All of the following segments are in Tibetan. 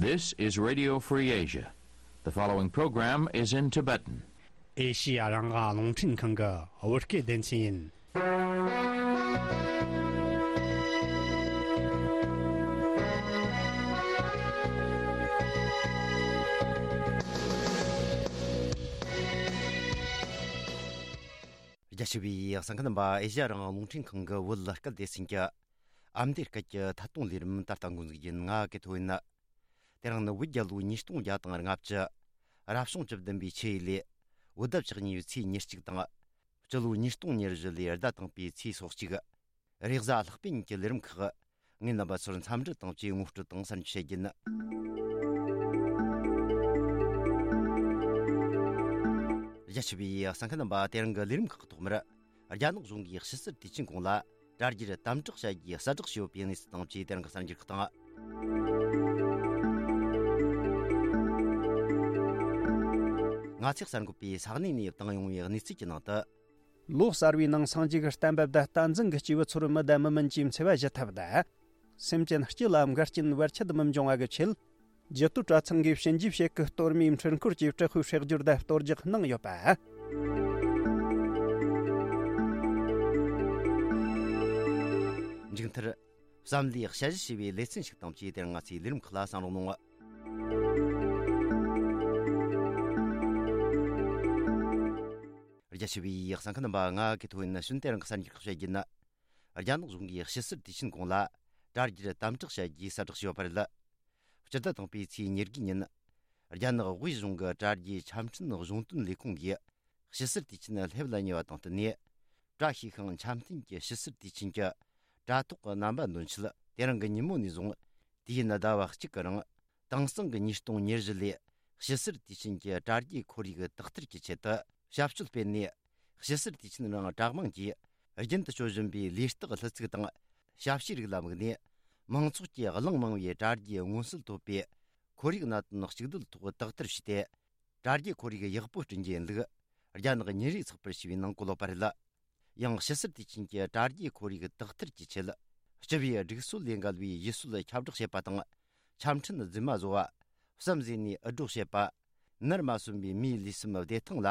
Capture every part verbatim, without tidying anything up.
This is Radio Free Asia. The following program is in Tibetan. ཨེ་ཤི་ཡ་རང་དབང་རླུང་འཕྲིན་ཁང་གི་བོད་སྐད་སྡེ་ཚན་ཡིན། རྒྱ་ཆེ་བའི་གསན་མཁན་རྣམ་པ། ཨེ་ཤི་ཡ་རང་དབང་རླུང་འཕྲིན་ཁང་གི་བོད་སྐད་སྡེ་ཚན་གྱི་ཨ་མདོའི་སྐད་ཀྱི་ཐད་གཏོང་ལས་རིམ་ད་ལྟ་འགོ་འཛུགས་ཡིན། ང་གི་ཐོ་ཡིན། དེ་རིང་ནི་བོད་རྒྱལ་ལོ་ཉིས་སྟོང་བརྒྱ་དང་ལྔ་བཅུ། རབ་བྱུང་བཅུ་བདུན་པའི་ཆུ་ཡོས་ལོའི་བོད་ཟླ་བཅུ་གཉིས་པའི་ཚེས་ཉེར་གཅིག་དང་། སྤྱི་ལོ་ཉིས་སྟོང་ཉེར་བཞི་ལོའི་ཟླ་དང་པོའི་ཚེས་སོ་གཅིག། རེས་གཟའ་ལྷག་པའི་ཉིན་གྱི་ལས་རིམ་ཁག། ངས་རྣམ་པ་ཚོར་འཚམས་འདྲི་དང་བཅས་ངོ་སྤྲོད་དང་གསར་འགྱུར་བཤད་རྒྱུ་ཡིན། རྒྱ་ཆེ་བའི་གསན་མཁན་རྣམ་པ། དེ་རིང་གི་ལས་རིམ་ཁག་གི་ཐོག་མར། རྒྱ་ནག་གཞུང་གིས་ཕྱི་སེལ་དུས་ཆེན་གོང་ལ་དྲ་རྒྱར་དམ་དྲག་བྱ་རྒྱུའི་གསལ་བསྒྲགས་བྱས་ཡོད་པའི་གནས་ཚུལ་དང་བཅས་དེ་རིང་གི་གསར་འགྱུར་ཁག་དང་། ང་ཚོས་གསར་འགོད་པས་ས་གནས་ནས་བཏང་ཡོང་བའི་གནས་ཚུལ་གྱི་ནང་དུ། ལོ་གསར་བའི་ནང་སངས་རྒྱས་ཀྱི་བསྟན་པ་དང་བསྟན་འཛིན་གྱི་སྐྱེས་བུ་ཚོར་མི་དང་མི་མིན་གྱི་འཚེ་བ་ཞི་ཐབས་དང་། སེམས་ཅན་སྤྱི་ལ་འགལ་རྐྱེན་བར་ཆད་མི་འབྱུང་བ་གི་ཆེད། རྒྱུད་སྟོད་གྲྭ་ཚང་གིས་ཞིན་ཅི་བྱེད་ཀྱི་གཏོར་མའི་འཕྲུལ་འཁོར་གྱི་དྲག་ཤུལ་ཧྲག་སྒྱུར་དང་གཏོར་རྒྱག་གནང་ཡོད་པ། མཇུག་མཐར། བསམ་བློའི་དཔྱད་གཞི་ཞེས་པའི་ལེ་ཚན་ཞིག་དང་བཅས་དེ་རིང་ང་ཚོའི་ལས་རིམ་ཁག་ལ་གསན་རོགས་གནང་། རྒྱ་ཆེ་བའི་གསན་མཁན་རྣམ་པ། ང་གི་ཐོ་ཡིན། ནི་ཤུན་ཏེ་རང་གི་གསར་འགྱུར་ཁག་བཤད་རྒྱུ་ཡིན། རྒྱ་ནག་གཞུང་གིས་ཕྱི་སེལ་དུས་ཆེན་གོང་ལ་དྲ་རྒྱར་དམ་དྲག་བྱ་རྒྱུའི་གསལ་བསྒྲགས་བྱས་ཡོད་པ་རེད། སྤྱི་ཟླ་དང་པོའི་ཚེས་ཉེར་དགུའི་ཉིན། རྒྱ་ནག་དབུས་གཞུང་གི་དྲ་རྒྱའི་ཆ་འཕྲིན་གཞུང་དོན་ལས་ཁུངས་ཀྱིས་ཕྱི་སེལ་དུས་ཆེན་སླེབས་ལ་ཉེ་བ་དང་བསྟུན་ནས། བཀྲ་ཤིས་ཤིང་འཆམ་མཐུན་གྱི་ཕྱི་སེལ་དུས་ཆེན་གྱི་དྲ་ཐོག་གི་རྣམ་པ་འདོན་ཆེད་དེ་རིང་གི་ཉིན་མོ་ནས་བཟུང་དུས་ཡུན་ཟླ་བ་གཅིག་གི་རིང་། དེང་སང་གི་ཉིས་སྟོང་ཉེར་བཞི་ལོའི་ཕྱི་སེལ་དུས་ཆེན་གྱི་དྲ་རྒྱའི་ཁོར་ཡུག་དག་ཐེར་གྱི་ཆེད་དུ་ཞབས་ཞུ་སྤེལ་ནས། ཕྱི་སེལ་དུས་ཆེན་རིང་དྲ་དམངས་ཀྱིས་རྒྱུན་དུ་སྤྱོད་བཞིན་པའི་ལས་རྟགས་ལྷུ་ཚིགས་དང་ཞབས་ཕྱིའི་རིགས་ལ་དམིགས་ནས། མང་ཚོགས་ཀྱིས་གླེང་མང་བའི་དྲ་རྒྱའི་མངོན་གསལ་དོད་པའི་ཁོར་ཡུག་གནད་དོན་གཅིག་སྡུད་ཐོག་དག་ཐེར་བྱས་ཏེ། དྲ་རྒྱའི་ཁོར་ཡུག་ཡག་པོ་བསྐྲུན་རྒྱུ་ཡིན་ལུགས། རྒྱ་ནག་ཉིན་རེའི་ཚགས་པར་ཞེས་པའི་ནང་བཀོད་ཡོད་པ་རེད། ཡང་ཕྱི་སེལ་དུས་ཆེན་གྱི་དྲ་རྒྱའི་ཁོར་ཡུག་དག་ཐེར་གྱི་ཆེད། སྤྱི་པའི་སྒྲིག་སྲོལ་ལས་འགལ་བའི་ཡུལ་སྲོལ་ཁྱབ་བསྒྲགས་བྱེད་པ་དང་། ཆ་འཕྲིན་རྫུན་མ་བཟོ་བ། བསམ་གཟས་ནས་འུད་སྒྲོག་བྱེད་པ། ནར་མ་སོན་པའི་མིའི་ལུས་སེམས་བདེ་ཐང་ལ་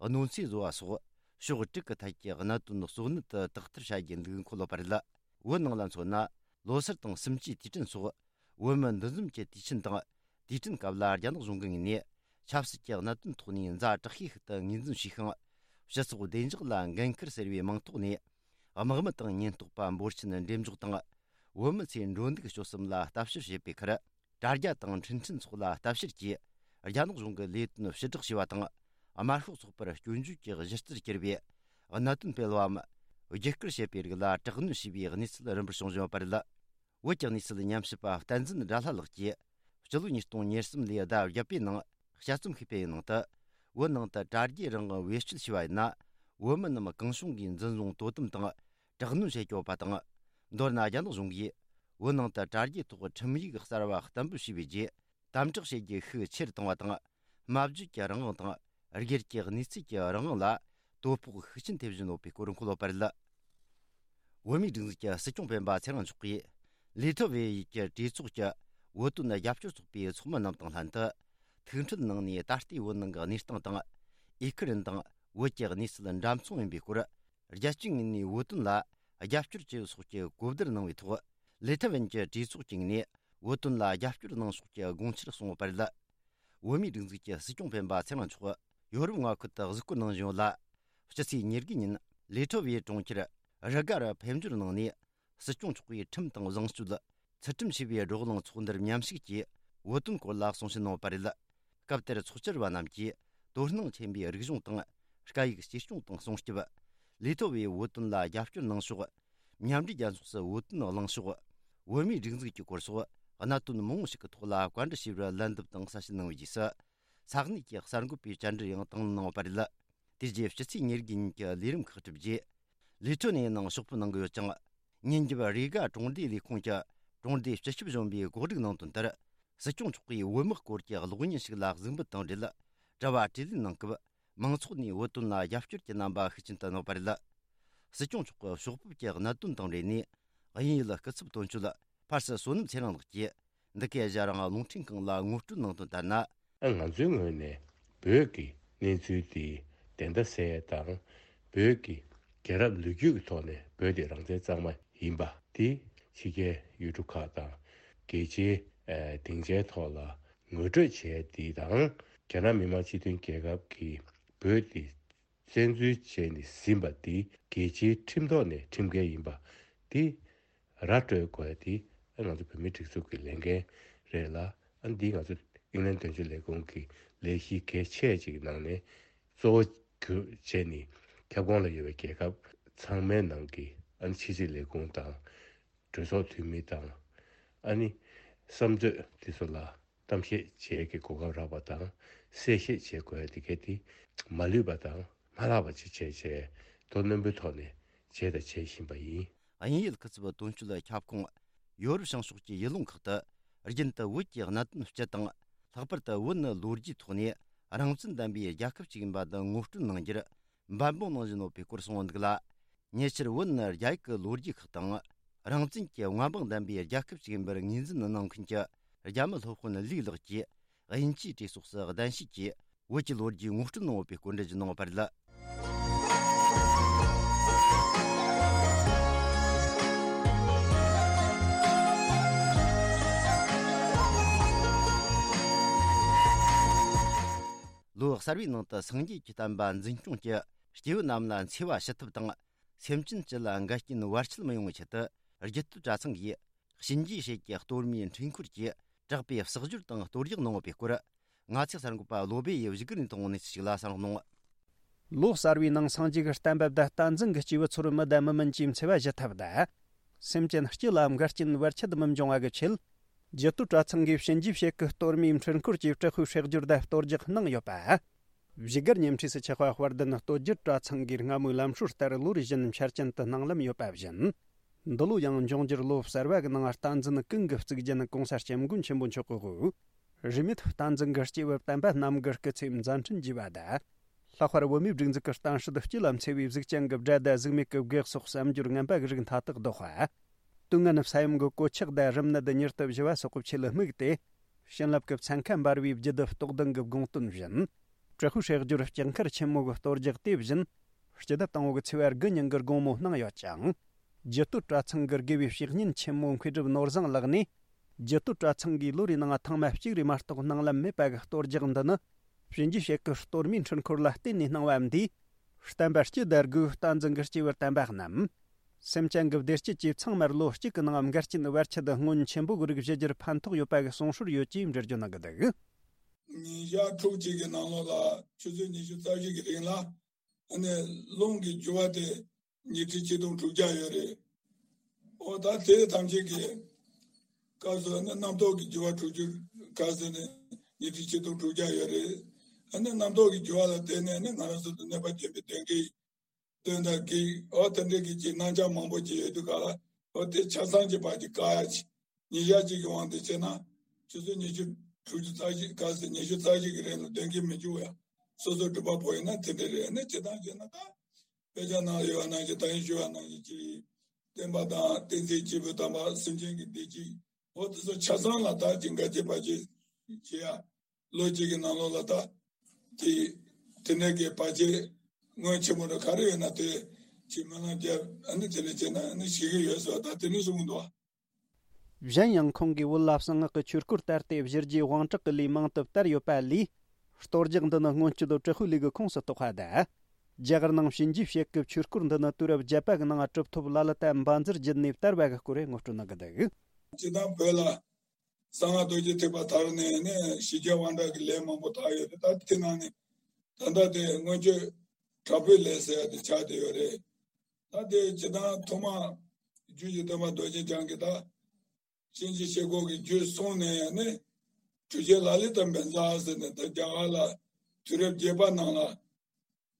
གནོད་འཚེ་བཟོ་བ་སོགས་ཕྱོགས་དྲུག་གི་ཐད་ཀྱི་གནད་དོན་གཙོ་གནད་དུ་དག་ཐེར་བྱ་རྒྱུ་འདུག་འཁོད་ཡོད་པ་རེད། བོད་ནང་ལ་མཚོན་ན། ལོ་སར་དང་གསུམ་བཅུའི་དུས་དྲན་སོགས། བོད་མི་འདུ་འཛོམས་ཀྱི་དུས་ཆེན་དང་། དུས་དྲན་སྐབས་ལ་རྒྱ་ནག་གཞུང་གི་ངོས་ནས་ཆབ་སྲིད་ཀྱི་གནད་དོན་ཐོག་ནས་ཛ་དྲག་ཤོས་ཤིག་ཏུ་ངོས་འཛིན་བྱས་ཤིང་། སྤྱི་ཚོགས་བདེ་འཇགས་ལ་འགན་ཁུར་ཟེར་བའི་མིང་ཐོག་ནས། དམག་མི་དང་ཉེན་རྟོག་པ་འབོར་ཆེན་འགྲེམས་འཇོག་དང་། བོད་མི་ཚོའི་འགྲོ་འདུག་སྤྱོད་གསུམ་ལ་ལྟ་ཞིབ་བྱེད་པའི་ཁར། དྲ་རྒྱ་དང་འཕྲིན་ཕྲན་སོགས་ལ་ལྟ་བཤེར་གྱིས། རྒྱ་ནག་གཞུང་གི་ལས་དོན་ཕྱིར་བསྒྲགས་བྱས་པ་དང་། དམར་ཤོག་ཚོགས་པར་སྐྱོན་བརྗོད་ཀྱི་གཞི་རྩར་གྱུར་པའི་གནད་དོན་སྤེལ་བའམ། བརྒྱུད་སྐུལ་བྱེད་པའི་རིགས་ལ་དྲག་གནོན་བྱས་པའི་གནས་ཚུལ་རིམ་པར་བྱུང་བཞིན་ཡོད་པ་རེད། བོད་ཀྱི་གནས་ཚུལ་ཉམས་ཞིབ་པ་བསྟན་འཛིན་དགྲ་ལྷ་ལགས་ཀྱིས། སྤྱི་ལོ་ཉིས་སྟོང་ཉེར་གསུམ་ལོའི་ཟླ་བརྒྱད་པའི་ནང་དཔྱད་རྩོམ་ཞིག་སྤེལ་བའི་ནང་དུ། བོད་ནང་དུ་དྲ་རྒྱའི་རང་དབང་བེད་སྤྱོད་བྱས་པ་ཡིན་ན། བོད་མི་རྣམས་གང་བྱུང་གིས་འཛིན་བཟུང་དོ་དམ་དང་། དྲག་གནོན་བྱེད་ཀྱི་ཡོད་པ་དང་། མདོར་ན་རྒྱ་ནག་གཞུང་གིས་བོད་ནང་དུ་དྲ་རྒྱའི་ཐོག་ཁྲིམས་ཡིག་གསར་བ་གཏན་འབེབས་བྱས་པའི་རྗེས། དམ་དྲག་བྱེད་རྒྱུ་ཤུགས་ཆེ་རུ་བཏང་བ་དང་། སྨྲ་བརྗོད་ཀྱི་རང་དབང་དང་། སྒེར་གྱི་གནས་ཚུལ་གྱི་རང་དབང་ལ་དོ་ཕོག་ཤུགས་ཆེན་ཐེབས་བཞིན་ཡོད་པའི་སྐོར་འཁོད་ཡོད་པ་རེད། བོད་མིའི་སྒྲིག་འཛུགས་ཀྱི་སྲིད་སྐྱོང་སྤེན་པ་ཚེ་རིང་མཆོག་གིས། ལི་ཐི་ཝེ་ཡི་གྲོས་ཚོགས་ཀྱི་བོད་དོན་རྒྱབ་སྐྱོར་ཚོགས་པའི་ཚོགས་མི་རྣམས་དང་ལྷན་དུ། ཐུག་འཕྲད་གནང་ནས། ད་ལྟའི་བོད་ནང་གི་གནས་སྟངས་དང་། ཨི་ཁུ་རན་དང་བོད་ཀྱི་གནས་ཚུལ་འདྲ་མཚུངས་ཡིན་པའི་སྐོར། རྒྱལ་སྤྱིའི་ངོས་ནས་བོད་དོན་ལ་རྒྱབ་སྐྱོར་བྱེད་ཡུལ་སོགས་ཀྱི་གོ་བསྡུར་གནང་བའི་ཐོག་ལི་ཐི་ཝན་གྱི་གྲོས་ཚོགས་ཀྱི་ངོས་ནས་བོད་དོན་ལ་རྒྱབ་སྐྱོར་གནང་ཕྱོགས་ཀྱི་དགོངས་འཆར་གསུངས་ཡོད་པ་རེད། བོད་མིའི་སྒྲིག་འཛུགས་ཀྱི་སྲིད་སྐྱོང་སྤེན་པ་ཚེ་རིང་མཆོག་ཡོ་རོབ་མངའ་ཁུལ་དུ་གཟིགས་སྐོར་གནང་བཞིན་ཡོད་ལ། སྤྱི་ཚེས་ཉེར་དགུའི་ཉིན་ལི་ཐི་ཝེ་གྲོང་ཁྱེར་རི་ག་རུ་ཕེབས་འབྱོར་གནང་ནས། སྲིད་སྐྱོང་མཆོག་གིས་ཁྲིམས་དང་བཟང་སྤྱོད། ཚུལ་ཁྲིམས་ཞེས་པའི་བགྲོ་གླེང་ཚོགས་འདུར་མཉམ་ཞུགས་ཀྱིས་བོད་དོན་སྐོར་ལ་གསུང་བཤད་གནང་ཡོད་པ་རེད། སྐབས་དེར་ཚོགས་བཅར་བ་རྣམས་ཀྱིས་དོ་སྣང་ཆེན་པོས་རིག་གཞུང་དང་སྐད་ཡིག་གཅེས་སྐྱོང་དང་སྲུང་སྐྱོབ། ལི་ཐི་ཝེ་བོད་དོན་ལ་རྒྱབ་སྐྱོར་གནང་ཕྱོགས། མཉམ་འབྲེལ་རྒྱལ་ཚོགས་སུ་བོད་དོན་གླེང་ཕྱོགས། བོད་མིའི་སྒྲིག་འཛུགས་ཀྱི་སྐོར་སོགས་གནད་དོན་མང་པོ་ཞིག་གི་ཐོག་ལ་བཀའ་འདྲི་ཞུས་པར་ལན་འདེབས་དང་གསལ་བཤད་གནང་བའི་རྗེས་སུ། ས་གནས་ཀྱི་གསར་འགོད་པའི་བཅར་འདྲི་ཡང་དང་ལེན་གནང་ཡོད་པ་རེད། དེ་རྗེས་སྤྱི་ཚེས་ཉེར་དགུ་ཉིན་གྱི་ལས་རིམ་ཁག་གྲུབ་རྗེས། ལི་ཐི་ཝེ་ནང་ཕྱོགས་བསྡོམས་གནང་གི་ཡོད་ཅིང་། ཉིན་རྒྱབ་རི་ག་གྲོང་སྡེའི་ལས་ཁུངས་ཀྱི་གྲོང་སྡེའི་སྤྱི་ཁྱབ་གཞོན་པས་གོ་སྒྲིག་གནང་དོན་ལྟར། སྲིད་སྐྱོང་མཆོག་གིས་བོད་དམག་སྐོར་གྱི་གློག་བརྙན་ཞིག་ལ་གཟིགས་འབུལ་དང་འབྲེལ། དྲི་བ་དྲིས་ལན་གནང་སྐབས། མང་ཚོགས་ནས་བོད་དོན་ལ་རྒྱབ་སྐྱོར་གྱི་རྣམ་པ་ཤུགས་ཆེན་དུ་གནས་པ་རེད། སྲིད་སྐྱོང་མཆོག་གི་ཕྱོགས་ཕེབས་ཀྱི་གནད་དོན་དང་འབྲེལ་ནས། དབྱིན་ཡུལ་སྐུ་ཚབ་དོན་གཅོད་ཕར་སི་བསོད་ནམས་ཚེ་རིང་ལགས་ཀྱིས། འདི་གའི་གཞན་རང་རླུང་འཕྲིན་ཁང་ལ་ངོ་སྤྲོད་གནང་དོན་ལྟར་ན། ང་ཚོའི་ངོས་ནས་བོད་ཀྱི་གནས་ཚུལ་དེ་བདེན་མཐའ་གསལ་དང་། བོད་ཀྱི་རྒྱལ་རབས་ལོ་རྒྱུས་ཀྱི་ཐོག་ནས་བོད་དེ་རང་བཙན་གཙང་མ་ཡིན་པ་དེ་ཕྱི་རྒྱལ་ཡུལ་གྲུ་ཁག་དང་རྒྱལ་སྤྱིའི་ཨ་སྡིངས་ཆའི་ཐོག་ལ་ངོ་སྤྲོད་བྱས་དེ་དང་། རྒྱ་ནག་མི་དམངས་སྤྱི་མཐུན་རྒྱལ་ཁབ་ཀྱིས་བོད་དེ་བཙན་འཛུལ་བྱས་ནས་ཟིན་པ་དེ་རྒྱལ་སྤྱིའི་ཁྲིམས་ཐོག་ནས་ཁྲིམས་འགལ་ཡིན་པ་དེ་ར་སྤྲོད་དགོས་དེ་ང་ཚོ་བོད་མིའི་སྒྲིག་འཛུགས་ཀྱི་ལས་འགན་རེད་ལ། ཨ་འདི་ང་ཚོ་དབྱིན་ལན་དོན་གཅོད་ལས་ཁུངས་ཀྱི་ལས་གཞི་གལ་ཆེ་ཅིག་ནང་ནས་གཙོ་བོ་གྱུར་བྱས་ནས་ཁྱབ་ཁོངས་ལ་ཡོད་པའི་རྒྱལ་ཁབ་ཚང་མའི་ནང་གི་ཨ་ནི་ཕྱི་སྲིད་ལས་ཁུངས་དང་། གྲོས་ཚོགས་འཐུས་མི་དང་། ཨ་ནི་བསམ་ཚོད་དེ་ཚོ་ལ་གཏམ་བཤད་བྱེད་ཀྱི་གོ་སྐབས་རག་པ་དང་། གསལ་བཤད་བྱེད་དགོས་དེ་གལ་ཏེ་མ་ལུས་པ་དང་མ་ལྷག་པ་ཅིག་བྱས་བྱས་དོ་རྣོན་པོའི་ཐོག་ནས་བྱས་དང་བྱེད་བཞིན་པ་ཡིན། དབྱིན་ཡུལ་སྐུ་ཚབ་དོན་གཅོད་ཁྱབ་ཁོངས་ཡོ་རོབ་བྱང་ཕྱོགས་ཀྱི་ཡུལ་ལུང་ཁག་ཏུ་རྒྱུན་དུ་བོད་ཀྱི་གནད་དོན་སྤྱི་དང་། ལྷག་པར་དུ་བོད་ནི་ལོ་རྒྱུས་ཐོག་ནས་རང་བཙན་ལྡན་པའི་རྒྱལ་ཁབ་ཅིག་ཡིན་པ་དང་ངོ་སྤྲོད་གནང་རྒྱུར་འབད་འབུངས་གནང་བཞིན་ཡོད་པའི་སྐོར་གསུངས་འདུག་ལ། ཉེ་ཆར་བོད་ནི་རྒྱ་ཡིག་གི་ལོ་རྒྱུས་ཁག་དང་། རང་བཙན་གྱི་མངའ་འབངས་ལྡན་པའི་རྒྱལ་ཁབ་ཅིག་ཡིན་པར་ངོས་འཛིན་གནང་མཁན་གྱི་རྒྱ་མི་སློབ་དཔོན་ལིའུ་ལགས་ཀྱིས་དབྱིན་ཇིའི་གྲོས་ཚོགས་སུ་གདན་ཞུས་ཀྱིས་བོད་ཀྱི་ལོ་རྒྱུས་ངོ་སྤྲོད་གནང་ཡོད་པའི་སྐོར་འགྲེལ་བརྗོད་གནང་བ་རེད། ལོ་གསར་བའི་ནང་དུ་སངས་རྒྱས་ཀྱི་བསྟན་པ་འཛིན་སྐྱོང་གི་སྐྱེས་བུ་རྣམས་ལ་འཚེ་བ་ཞི་ཐབས་དང་། སེམས་ཅན་སྤྱི་ལ་འགལ་རྐྱེན་བར་ཆད་མི་ཡོང་བའི་ཆེད་དུ། རྒྱུད་སྟོད་གྲྭ་ཚང་གིས་གཤིན་རྗེའི་ཞལ་གྱི་གཏོར་མའི་འཕྲུལ་འཁོར་གྱིས་དྲག་པའི་གསོག་སྦྱོར་དང་གཏོར་རྒྱག་གནང་ཡོད་པའི་སྐོར། ང་ཚོའི་གསར་འགོད་པ་བློ་སྦེ་ཡིས་བཞུགས་སྒར་ནས་བཏང་བའི་གནས་ཚུལ་ཞིག་ལ་གསན་རོགས་གནང་། ལོ་གསར་བའི་ནང་སངས་རྒྱས་ཀྱི་བསྟན་པ་དང་བསྟན་འཛིན་གྱི་སྐྱེས་བུ་ཚོར་མི་དང་མི་མིན་གྱི་འཚེ་བ་ཞི་ཐབས་དང་། སེམས་ཅན་སྤྱི་ལ་འགལ་རྐྱེན་བར་ཆད་མི་འབྱུང་བ་གི་ཆེད། རྒྱུད་སྟོད་གྲྭ་ཚང་གིས་གཤིན་རྗེའི་ཞལ་གྱི་གཏོར་མའི་འཕྲུལ་འཁོར་གྱིས་དྲག་པོའི་སྲེག་སྦྱོར་དང་གཏོར་རྒྱག་གནང་ཡོད་པ། བཞུགས་སྒར་ཉེ་འཁྲིས་སུ་ཆགས་པ་དཔལ་ལྡན་སྟོད་རྒྱུད་གྲྭ་ཚང་གིས་སྔ་མོའི་ལམ་སྲོལ་ལྟར་ལོ་རེ་བཞིན་འཆར་ཅན་དུ་གནང་ལམ་ཡོད་པ་བཞིན། འདི་ལོ་ཡང་འབྱུང་འགྱུར་ལོ་གསར་བ་གི་ནང་བསྟན་འཛིན་ཀུན་གྱི་གཙུག་རྒྱན་༸གོང་ས་༸སྐྱབས་མགོན་ཆེན་པོ་མཆོག་གི་དབུ། རིས་མེད་བསྟན་འཛིན་གྱི་སྐྱེས་བུ་བསྟན་པ་རྣམས་ཀྱི་སྐུ་ཚེ་མཛད་འཕྲིན་རྒྱས་པ་དང་། ལྷག་པར་བོད་མིའི་སྒྲིག་འཛུགས་ཀྱི་གཏམ་སྲོལ་སྤྱི་ལ་འཚེ་བའི་གཟུགས་ཅན་གྱི་དགྲ་དང་གཟུགས་མེད་ཀྱི་བགེགས་སོགས་བསམ་སྦྱོར་ངན་པ་གི་རིགས་མཐའ་དག་བཟློག་པ། དུས་ངན་ས་ཡོམ་གྱི་གོད་ཆག་དང་རིམས་ནད་ཉེར་དུ་བཞི་བ་སོགས་ཀྱི་ཆོས་ལ་དམིགས་ཏེ། བྱིན་རླབས་ཀྱི་ཚན་ཁ་འབར་བའི་རྒྱུད་སྡེ་རྟོགས་ལྡན་གྱི་དགོངས་དོན་བཞིན། དྲག་པོའི་སྲེག་སྦྱོར་ལྕགས་མཁར་ཆེན་མོ་གི་གཏོར་རྒྱག་དེ་བཞིན། སྤྱི་ཟླ་དང་པོ་གི་ཚེས་པ་དགུ་ཉིན་གྱི་དགོང་མོ་གནང་ཡོད་ཅིང་། རྒྱུད་སྟོད་གྲྭ་ཚང་གི་དགེ་བའི་བཤེས་གཉེན་ཆེན་མོ་མཁས་གྲུབ་ནོར་བཟང་ལགས་ནས། རྒྱུད་སྟོད་གྲྭ་ཚང་གིས་ལོ་རེའི་ནང་ཐེངས་མ་གཅིག་རེ་མ་གཏོགས་གནང་ལམ་མེད་པ་གི་གཏོར་རྒྱག་འདི་ནི། གཤིན་རྗེའི་ཞལ་གྱི་གཏོར་མའི་འཕྲུལ་འཁོར་ལ་བརྟེན་ནས་གནང་བ་འདིས། བསྟན་པ་སྤྱི་དང་སྒོས་བསྟན་འཛིན་གྱི་སྐྱེས་བུ་དམ་པ་རྣམས། སེམས་ཅན་གྱི་བདེ་སྐྱིད་ཀྱིས་ཚང་མར་ལོ་གཅིག་གི་ནང་འགལ་རྐྱེན་བར་ཆད་སྔོན་ཆེན་པོ་གི་རིགས་ཞི་རྒྱུར་ཕན་ཐོགས་ཡོད་པ་གི་གསུང་སྲོལ་ཡོད་ཅེས་འགྲེལ་བརྗོད་གནང་གི་འདུག། ཉིན་ཞག་ཕྲུགས་གཅིག་གི་ནང་ལོགས་ལ་ཆུ་ཚོད་ཉི་ཤུ་རྩ་བཞི་གི་རིང་ལ་ཨ་ནི་རླུང་གི་རྒྱུ་བ་དེ་ཉི་ཁྲི་ཆིག་སྟོང་དྲུག་བརྒྱ་ཡོད་རེད། ཨོ་ད་དེ་ཐམས་ཅད་ཀྱི་སྐབས་སུ་ཨ་ནི་རྣམ་རྟོག་གི་རྒྱུ་བ་དྲུག་ཅུ་སྐབས་སུ་ནི་ཉི་ཁྲི་ཆིག་སྟོང་དྲུག་བརྒྱ་ཡོད་རེད། ཨ་ནི་རྣམ་རྟོག་གི་རྒྱུ་བ་ལ་བརྟེན་ནས་ཨ་ནི་ང་རང་ཚོ་དང་གནོད་པ་བྱེད་པའི་དོན་གྱི་དོན་དག་གི་ཨོ་དེ་འདྲའི་གི་ཅིག་རྣམ་གཞག་མང་པོ་ཅིག་ཡོད་དུས་ག་ལ་ཨོ་དེ་ཆ་ཚང་གི་བར་གྱི་བཀག་ཡ་ཅིག་ཉིན་ཞག་གཅིག་གི་དབང་དུ་བྱས་ན་ཆུ་ཚོད་ཉི་ཤུ་དྲུག་ཅུ་རྩ་བཞི་ག་ཚོད་ཉི་ཤུ་རྩ་བཞི་གི་རིང་ལ་དོན་གྱི་མི་འཇུག་ཡ་སོ་སོ་སྒྲུབ་པ་པོ་ཡིན་ན་དེ་འདྲ་རེད། ཨ་ནི་ཇི་ལྟར་བྱས་ན་ད་དཔེ་ཆ་ནང་ལ་ཡོད་པ་ནང་བཞིན་ད་ཡིན་ཞུ་བ་ནང་བཞིན་གྱི་བསྟན་པ་དང་བསྟན་འཛིན་སྐྱེས་བུ་དམ་པ་སེམས་ཅན་གྱི་བདེ་སྐྱིད་འོ་དེ་ཚོ་ཆ་ཚང་ལ་ད་ཅིག་འགལ་རྐྱེན་བར་ཆད་བྱེད་ཡ། ལོ་གཅིག་གི་ནང་ལོགས་ལ་ད་དེ་དེ་ནས་གི་བར་ཆད་སྔོན་ཆད་མོ་ར་ག་རེ་ཡོད་ན་དེ་ཅིག་སྨོན་ལམ་རྒྱབ་ཨ་ནི་དེ་ནས་བྱས་ན་ཨ་ནི་ཞི་གི་ཡོད་ཟེར་བ་ད་དེ་ནས་གསུངས་འདུག་བ། གཞན་ཡང་ཁོང་གིས་བོད་ལ་གསང་སྔགས་ཀྱི་ཆོས་སྐོར་དར་ཏེ་གཞི་རྒྱས་དབང་དྲག་གི་ལས་མང་དུ་དར་ཡོད་པ་ལས། གཏོར་རྒྱག་འདི་ནི་སྔོན་སྐྱོད་དྲག་པོའི་ལས་ཀྱི་ཁོངས་སུ་གཏོགས་པ་དང་། རྒྱ་གར་ནང་གཤིན་རྗེའི་ཞལ་གྱི་ཆོས་སྐོར་འདི་ནི་དུས་རབས་བརྒྱད་པ་གི་ནང་གྲུབ་ཐོབ་ལ་ལ་དང་བཛྲ་བརྒྱུད་ནས་དར་བ་གི་སྐོར་ངོ་སྤྲོད་གནང་གི་འདུག། སྤྱིར་བཏང་བོད་ལ་གསང་སྔགས་རྡོ་རྗེ་ཐེག་པ་དར་ནས་ནས་གཞི་རྒྱས་དབང་དྲག་གི་ལས་མང་པོ་དར་ཡོད་རེད། ད་དེ་ནང་ནས་ད་ལྟ་དེ་སྔོན་སྐྱོད་དྲག་པོའི་ལས་ཟེར་ཡ་དེ་ཆགས་བསྡད་ཡོད་རེད། ད་དེ་སྤྱིར་བཏང་ཐོག་མ་རྒྱུད་ཀྱི་སྟོན་པ་རྡོ་རྗེ་འཆང་གིས་ད་གཤིན་རྗེ་ཞལ་སྐོར་གྱི་རྒྱུད་གསུངས་ནས་ནི་གྲུབ་ཆེན་ལ་ལས་དང་བཛྲ་ཟེར་ནས་ད་རྒྱ་གར་ལ་དུས་རབས་བརྒྱད་པ་ནང་ལ།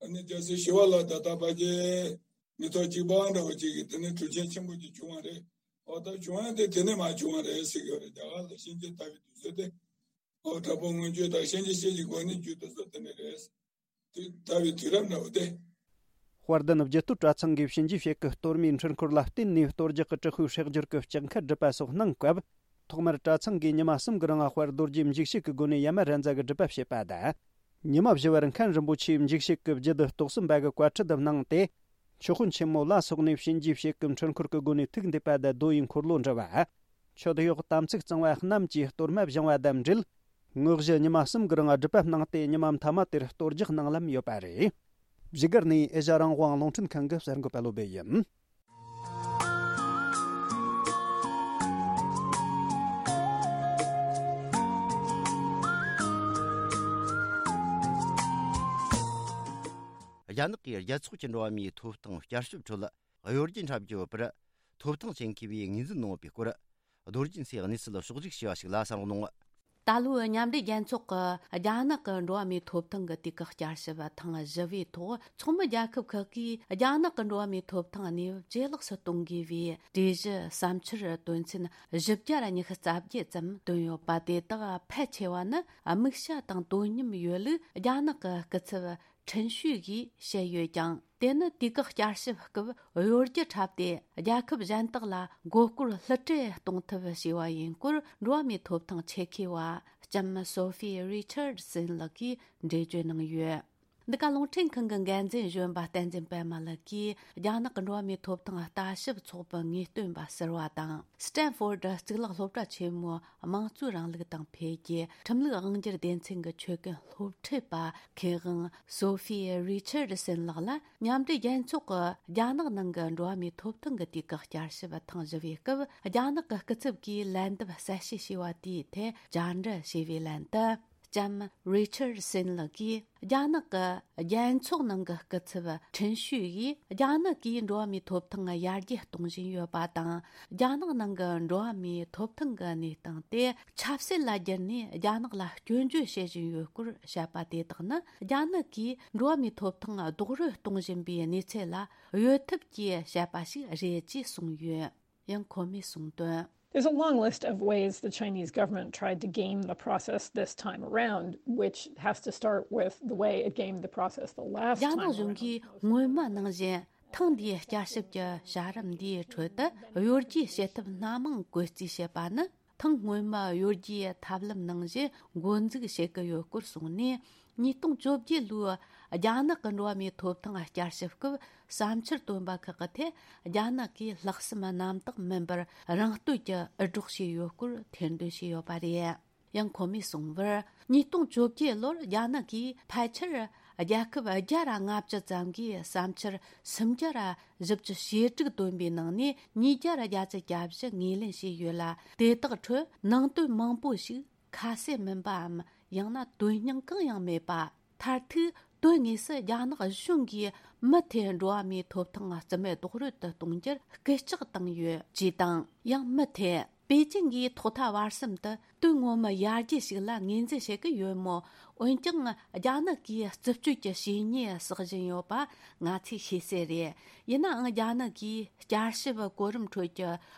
ཨ་ནི་རྒྱལ་སྲས་ཞི་བ་ལྷ་དང་ད་ཕལ་ཆེར་མི་ཐོག་གཅིག་པ་འདྲ་བོ་གཅིག་གིས་དེ་ནས་གྲུབ་ཆེན་ཆེན་པོ་གཅིག་བྱུང་བ་རེད། ཨོ་ད་བྱུང་ཡ་དེ་དེ་ནས་མར་བྱུང་བ་རེད་ཟེར་གྱི་ཡོད་རེད། རྒྱ་གར་ལ་གཤིན་རྗེ་དར་བའི་དུས་ཚོད་དེ། ཨོ་དྲག་པོ་མངོན་སྤྱོད་དང་གཤིན་རྗེ་གཤེད་ཀྱི་སྒོ་ནས་རྒྱུད་དེ་ཚོ་དེ་ནས་རེད། དེ་དར་བའི་དུས་རབས་འདྲ་བོ་དེ། དཔལ་ལྡན་རྒྱུད་སྟོད་གྲྭ་ཚང་གིས་གཤིན་རྗེའི་ཞལ་གྱི་གཏོར་མའི་འཕྲུལ་འཁོར་ལ་བརྟེན་ནས་གཏོར་རྒྱག་གི་དྲག་པོའི་སྲེག་སྦྱོར་གྱི་ལྕགས་མཁར་སྒྲུབ་པ་སོགས་གནང་སྐབས། ཐོག་མར་གྲྭ་ཚང་གིས་ཉི་མ་གསུམ་གྱི་རིང་དཔལ་རྡོ་རྗེ་འཇིགས་བྱེད་ཀྱི་སྒོ་ནས་ཡ་མ་ར་ཛ་གི་སྒྲུབ་པ་བྱེད་པ་དང་། ཉི་མ་བཞི་བར་མཁན་རིན་པོ་ཆེས་འཇིགས་བྱེད་ཀྱི་རྒྱུད་སྡེ་རྟོགས་ཟིན་པ་གི་བཀའ་ཁྲིད་དུ་གནང་སྟེ། མཆོད་དཔོན་ཆེན་མོ་ལ་སོགས་ནས་གཤིན་རྗེའི་གཤེད་ཀྱི་འཕྲུལ་འཁོར་གྱི་སྒོ་ནས་ཐུགས་འདེབས་པ་དང་རྡོ་ཡི་འཁོར་ལོ་འདྲི་བ། མཆོད་གཡོག་དམ་ཚིག་གཙང་བ་རྣམས་ཀྱིས་གཏོར་མ་བཞེངས་པ་དང་འབྲེལ། དངོས་གཞི་ཉི་མ་གསུམ་གྱི་རིང་སྒྲུབ་པ་གནང་སྟེ། ཉི་མ་མཐའ་མ་དེར་གཏོར་རྒྱག་གནང་ལམ་ཡོད་པ་རེད། བཞུགས་སྒར་ནས་ཨེ་ཤ་རང་དབང་རླུང་འཕྲིན་ཁང་གི་གསར་འགོད་པ་བློ་བྷེ་ཡིན། རྒྱ་ནག་གིས་རྒྱལ་ཚོགས་ཀྱི་འགྲོ་བ་མིའི་ཐོབ་ཐང་བསྐྱར་ཞིབ་ཁྲོད། གཡོ་སྒྱུ་འཁྲབ་རྒྱུ་ཡོད་པར། ཐོབ་ཐང་ཅན་མཁས་པས་ངོས་འཛིན་གནང་ཡོད་པའི་སྐོར། རྡོ་རྗེ་སེང་གེས་གནས་ཚུལ་ཕྱོགས་བསྒྲིགས་བྱས་པ་ཞིག་ལ་གསན་རོགས་གནང་། ད་ལོའི་མཉམ་འབྲེལ་རྒྱལ་ཚོགས་ཀྱི་རྒྱ་ནག་གི་འགྲོ་བ་མིའི་ཐོབ་ཐང་གི་དུས་བཀག་བསྐྱར་ཞིབ་ཐེངས་བཞི་བའི་ཐོག་ཚོགས་མི་རྒྱལ་ཁབ་ཁག་གིས་རྒྱ་ནག་གི་འགྲོ་བ་མིའི་ཐོབ་ཐང་གནས་བབ་ཇེ་ལེགས་སུ་གཏོང་དགོས་པའི་གྲོས་གཞི་བསམ་འཆར་དོན་ཚན་བཞི་བརྒྱ་ཉི་ཤུ་རྩ་བརྒྱད་ཙམ་བཏོན་ཡོད་པ། དེ་དག་ཕལ་ཆེ་བ་ནི་དམིགས་བྱ་དང་དོ་མཉམ་ཡོད་ལུགས་རྒྱ་ནག་གི་སྐུ་ཚབ་ཁྲིན་ཤུས་ཀྱིས་བཤད་ཡོད་ཀྱང་། དེ་ནི་དུས་བཀག་བསྐྱར་ཞིབ་སྐབས་གཡོ་སྒྱུ་འཁྲབ་སྟེ། རྒྱལ་ཁབ་གཞན་དག་ལ་མགོ་སྐོར་བསླུ་བྲིད་གཏོང་ཐབས་བྱས་པ་ཡིན་སྐོར། འགྲོ་བ་མིའི་ཐོབ་ཐང་ཆེད་མཁས་པ་ལྕམ་སོ་ཧྥི་རི་ཆར་སན་ལགས་ཀྱིས་འགྲེལ་བརྗོད་གནང་ཡོད། འདི་ག་རླུང་འཕྲིན་ཁང་གི་འགན་འཛིན་གཞོན་པ་བསྟན་འཛིན་པད་མ་ལགས་ཀྱིས། རྒྱ་ནག་གི་འགྲོ་བ་མིའི་ཐོབ་ཐང་ལྟ་ཞིབ་ཚོགས་པའི་ངེས་སྟོན་པ་ཟུར་པ་དང་། སི་ཏན་ཧྥོར་ཌི་གཙུག་ལག་སློབ་གྲྭ་ཆེན་མོའི་དམངས་གཙོའི་རིང་ལུགས་དང་འཕེལ་རྒྱས་ཁྲིམས་ལུགས་དབང་སྒྱུར་སྡེ་ཚན་གྱི་ཆོད་གན་སློབ་ཁྲིད་པ་མཁས་དབང་སོ་ཧྥི་རི་ཆར་སན་ལགས་ལ། མཉམ་འབྲེལ་རྒྱལ་ཚོགས་ཀྱིས་རྒྱ་ནག་ནང་གི་འགྲོ་བ་མིའི་ཐོབ་ཐང་གི་དུས་བཀག་བསྐྱར་ཞིབ་ཐེངས་བཞི་བའི་སྐབས། རྒྱ་ནག་གི་སྐུ་ཚབ་ཀྱིས་ལན་འདེབས་གསལ་བཤད་བྱས་པ་དེའི་ཐད་བཅར་འདྲི་བྱས་པའི་ལན་དུ། ལྕམ་རི་ཆར་སན་ལགས་ཀྱིས། རྒྱ་ནག་གི་རྒྱལ་ཚོགས་ནང་གི་སྐུ་ཚབ་ཁྲིན་ཤུས་ཀྱིས། རྒྱ་ནག་གིས་འགྲོ་བ་མིའི་ཐོབ་ཐང་ཡར་རྒྱས་གཏོང་བཞིན་ཡོད་པ་དང་། རྒྱ་ནག་ནང་གི་འགྲོ་བ་མིའི་ཐོབ་ཐང་གི་གནས་སྟངས་དེ་ཆབ་སྲིད་ལ་བསྒྱུར་ནས། རྒྱ་ནག་ལ་སྐྱོན་བརྗོད་བྱེད་བཞིན་ཡོད་སྐོར་བཤད་པ་དེ་དག་ནི། རྒྱ་ནག་གིས་འགྲོ་བ་མིའི་ཐོབ་ཐང་རྡོག་རོལ་གཏོང་བཞིན་པའི་གནས་ཚུལ་ལ་གཡོལ་ཐབས་ཀྱིས་བཤད་པ་ཞིག་རེད་ཅེས་གསུངས་ཡོད། ཡང་ཁོ་མོས་གསུངས་དོན། There's a long list of ways the Chinese government tried to game the process this time around, which has to start with the way it gamed the process the last རྒྱ་ནག་time གཞུང་གིས་སྔོན་མ་ནང་བཞིན་ཐེངས་འདིའི་བསྐྱར་ཞིབ་ཀྱི་བྱ་རིམ་འདིའི་ཁྲོད་དུ། གཡོ་སྒྱུའི་བྱེད་ཐབས་སྣ་མང་བཀོལ་རྩིས་བྱེད་པ་ནི། ཐེངས་སྔོན་མ་གཡོ་སྒྱུའི་ཐབས་ལམ་ནང་བཞིན་འགོ་འཛུགས་བྱེད་ཀྱི་ཡོད་སྐོར་གསུངས་ནས། ཉིས་སྟོང་བཅོ་བརྒྱད་ལོའི་རྒྱ་ནག་གི་འགྲོ་བ་མིའི་ཐོབ་ཐང་བསྐྱར་ཞིབ་སྐབས། བསམ་འཆར་བཏོན་པ་ཁག་གི་ཐད། རྒྱ་ནག་གིས་ལྷག་བསམ་རྣམ་དག་མིན་པར་རང་བསྟོད་ཀྱི་འུར་སྒྲོག་བྱས་ཡོད་སྐོར་ཐེར་འདོན་བྱས་ཡོད་པ་རེད། ཡང་ཁོ་མོས་གསུངས་པར། ཉིས་སྟོང་བཅོ་བརྒྱད་ལོར་རྒྱ་ནག་གིས་ཕལ་ཆེར་རྒྱལ་ཁབ་བརྒྱ་ར་ལྔ་བཅུ་ཙམ་གྱི་བསམ་འཆར་སུམ་བརྒྱ་ར་བཞི་བཅུ་ཞེ་དྲུག་བཏོན་པའི་ནང་ནས། ཉིས་བརྒྱ་ར་བརྒྱད་ཅུ་གྱ་བཞི་ངོས་ལེན་བྱས་ཡོད་ལ། དེ་དག་ཁྲོད་ནང་དོན་མང་པོ་ཞིག་ཁ་གསལ་མིན་པའམ། ཡང་ན་དོན་སྙིང་གང་ཡང་མེད་པ། མཐར་ཐུག་དོན་དངོས་སུ་རྒྱ་ནག་གཞུང་གིས་མུ་མཐུད་འགྲོ་བ་མིའི་ཐོབ་ཐང་རྩིས་མེད་རྡོག་རོལ་དུ་གཏོང་རྒྱུར་སྐུལ་ལྕག་བཏང་ཡོད་ཅེས་དང་། ཡང་མུ་མཐུད་པེ་ཅིང་གིས་ཐོག་མཐའ་བར་གསུམ་དུ་དོན་ངོ་མ་ཡར་རྒྱས་ཤིག་ལ་ངོས་འཛིན་བྱེད་ཀྱི་ཡོད་མོད། འོན་ཀྱང་རྒྱ་ནག་གིས་རྩུབ་སྤྱོད་ཀྱི་བྱས་ཉེས་བསགས་བཞིན་ཡོད་པ་ང་ཚོས་ཤེས་གསལ་རེད། ཡིན་ནའང་། རྒྱ་ནག་གིས་བསྐྱར་ཞིབ་གོ་རིམ་ཁྲོད་ཀྱི་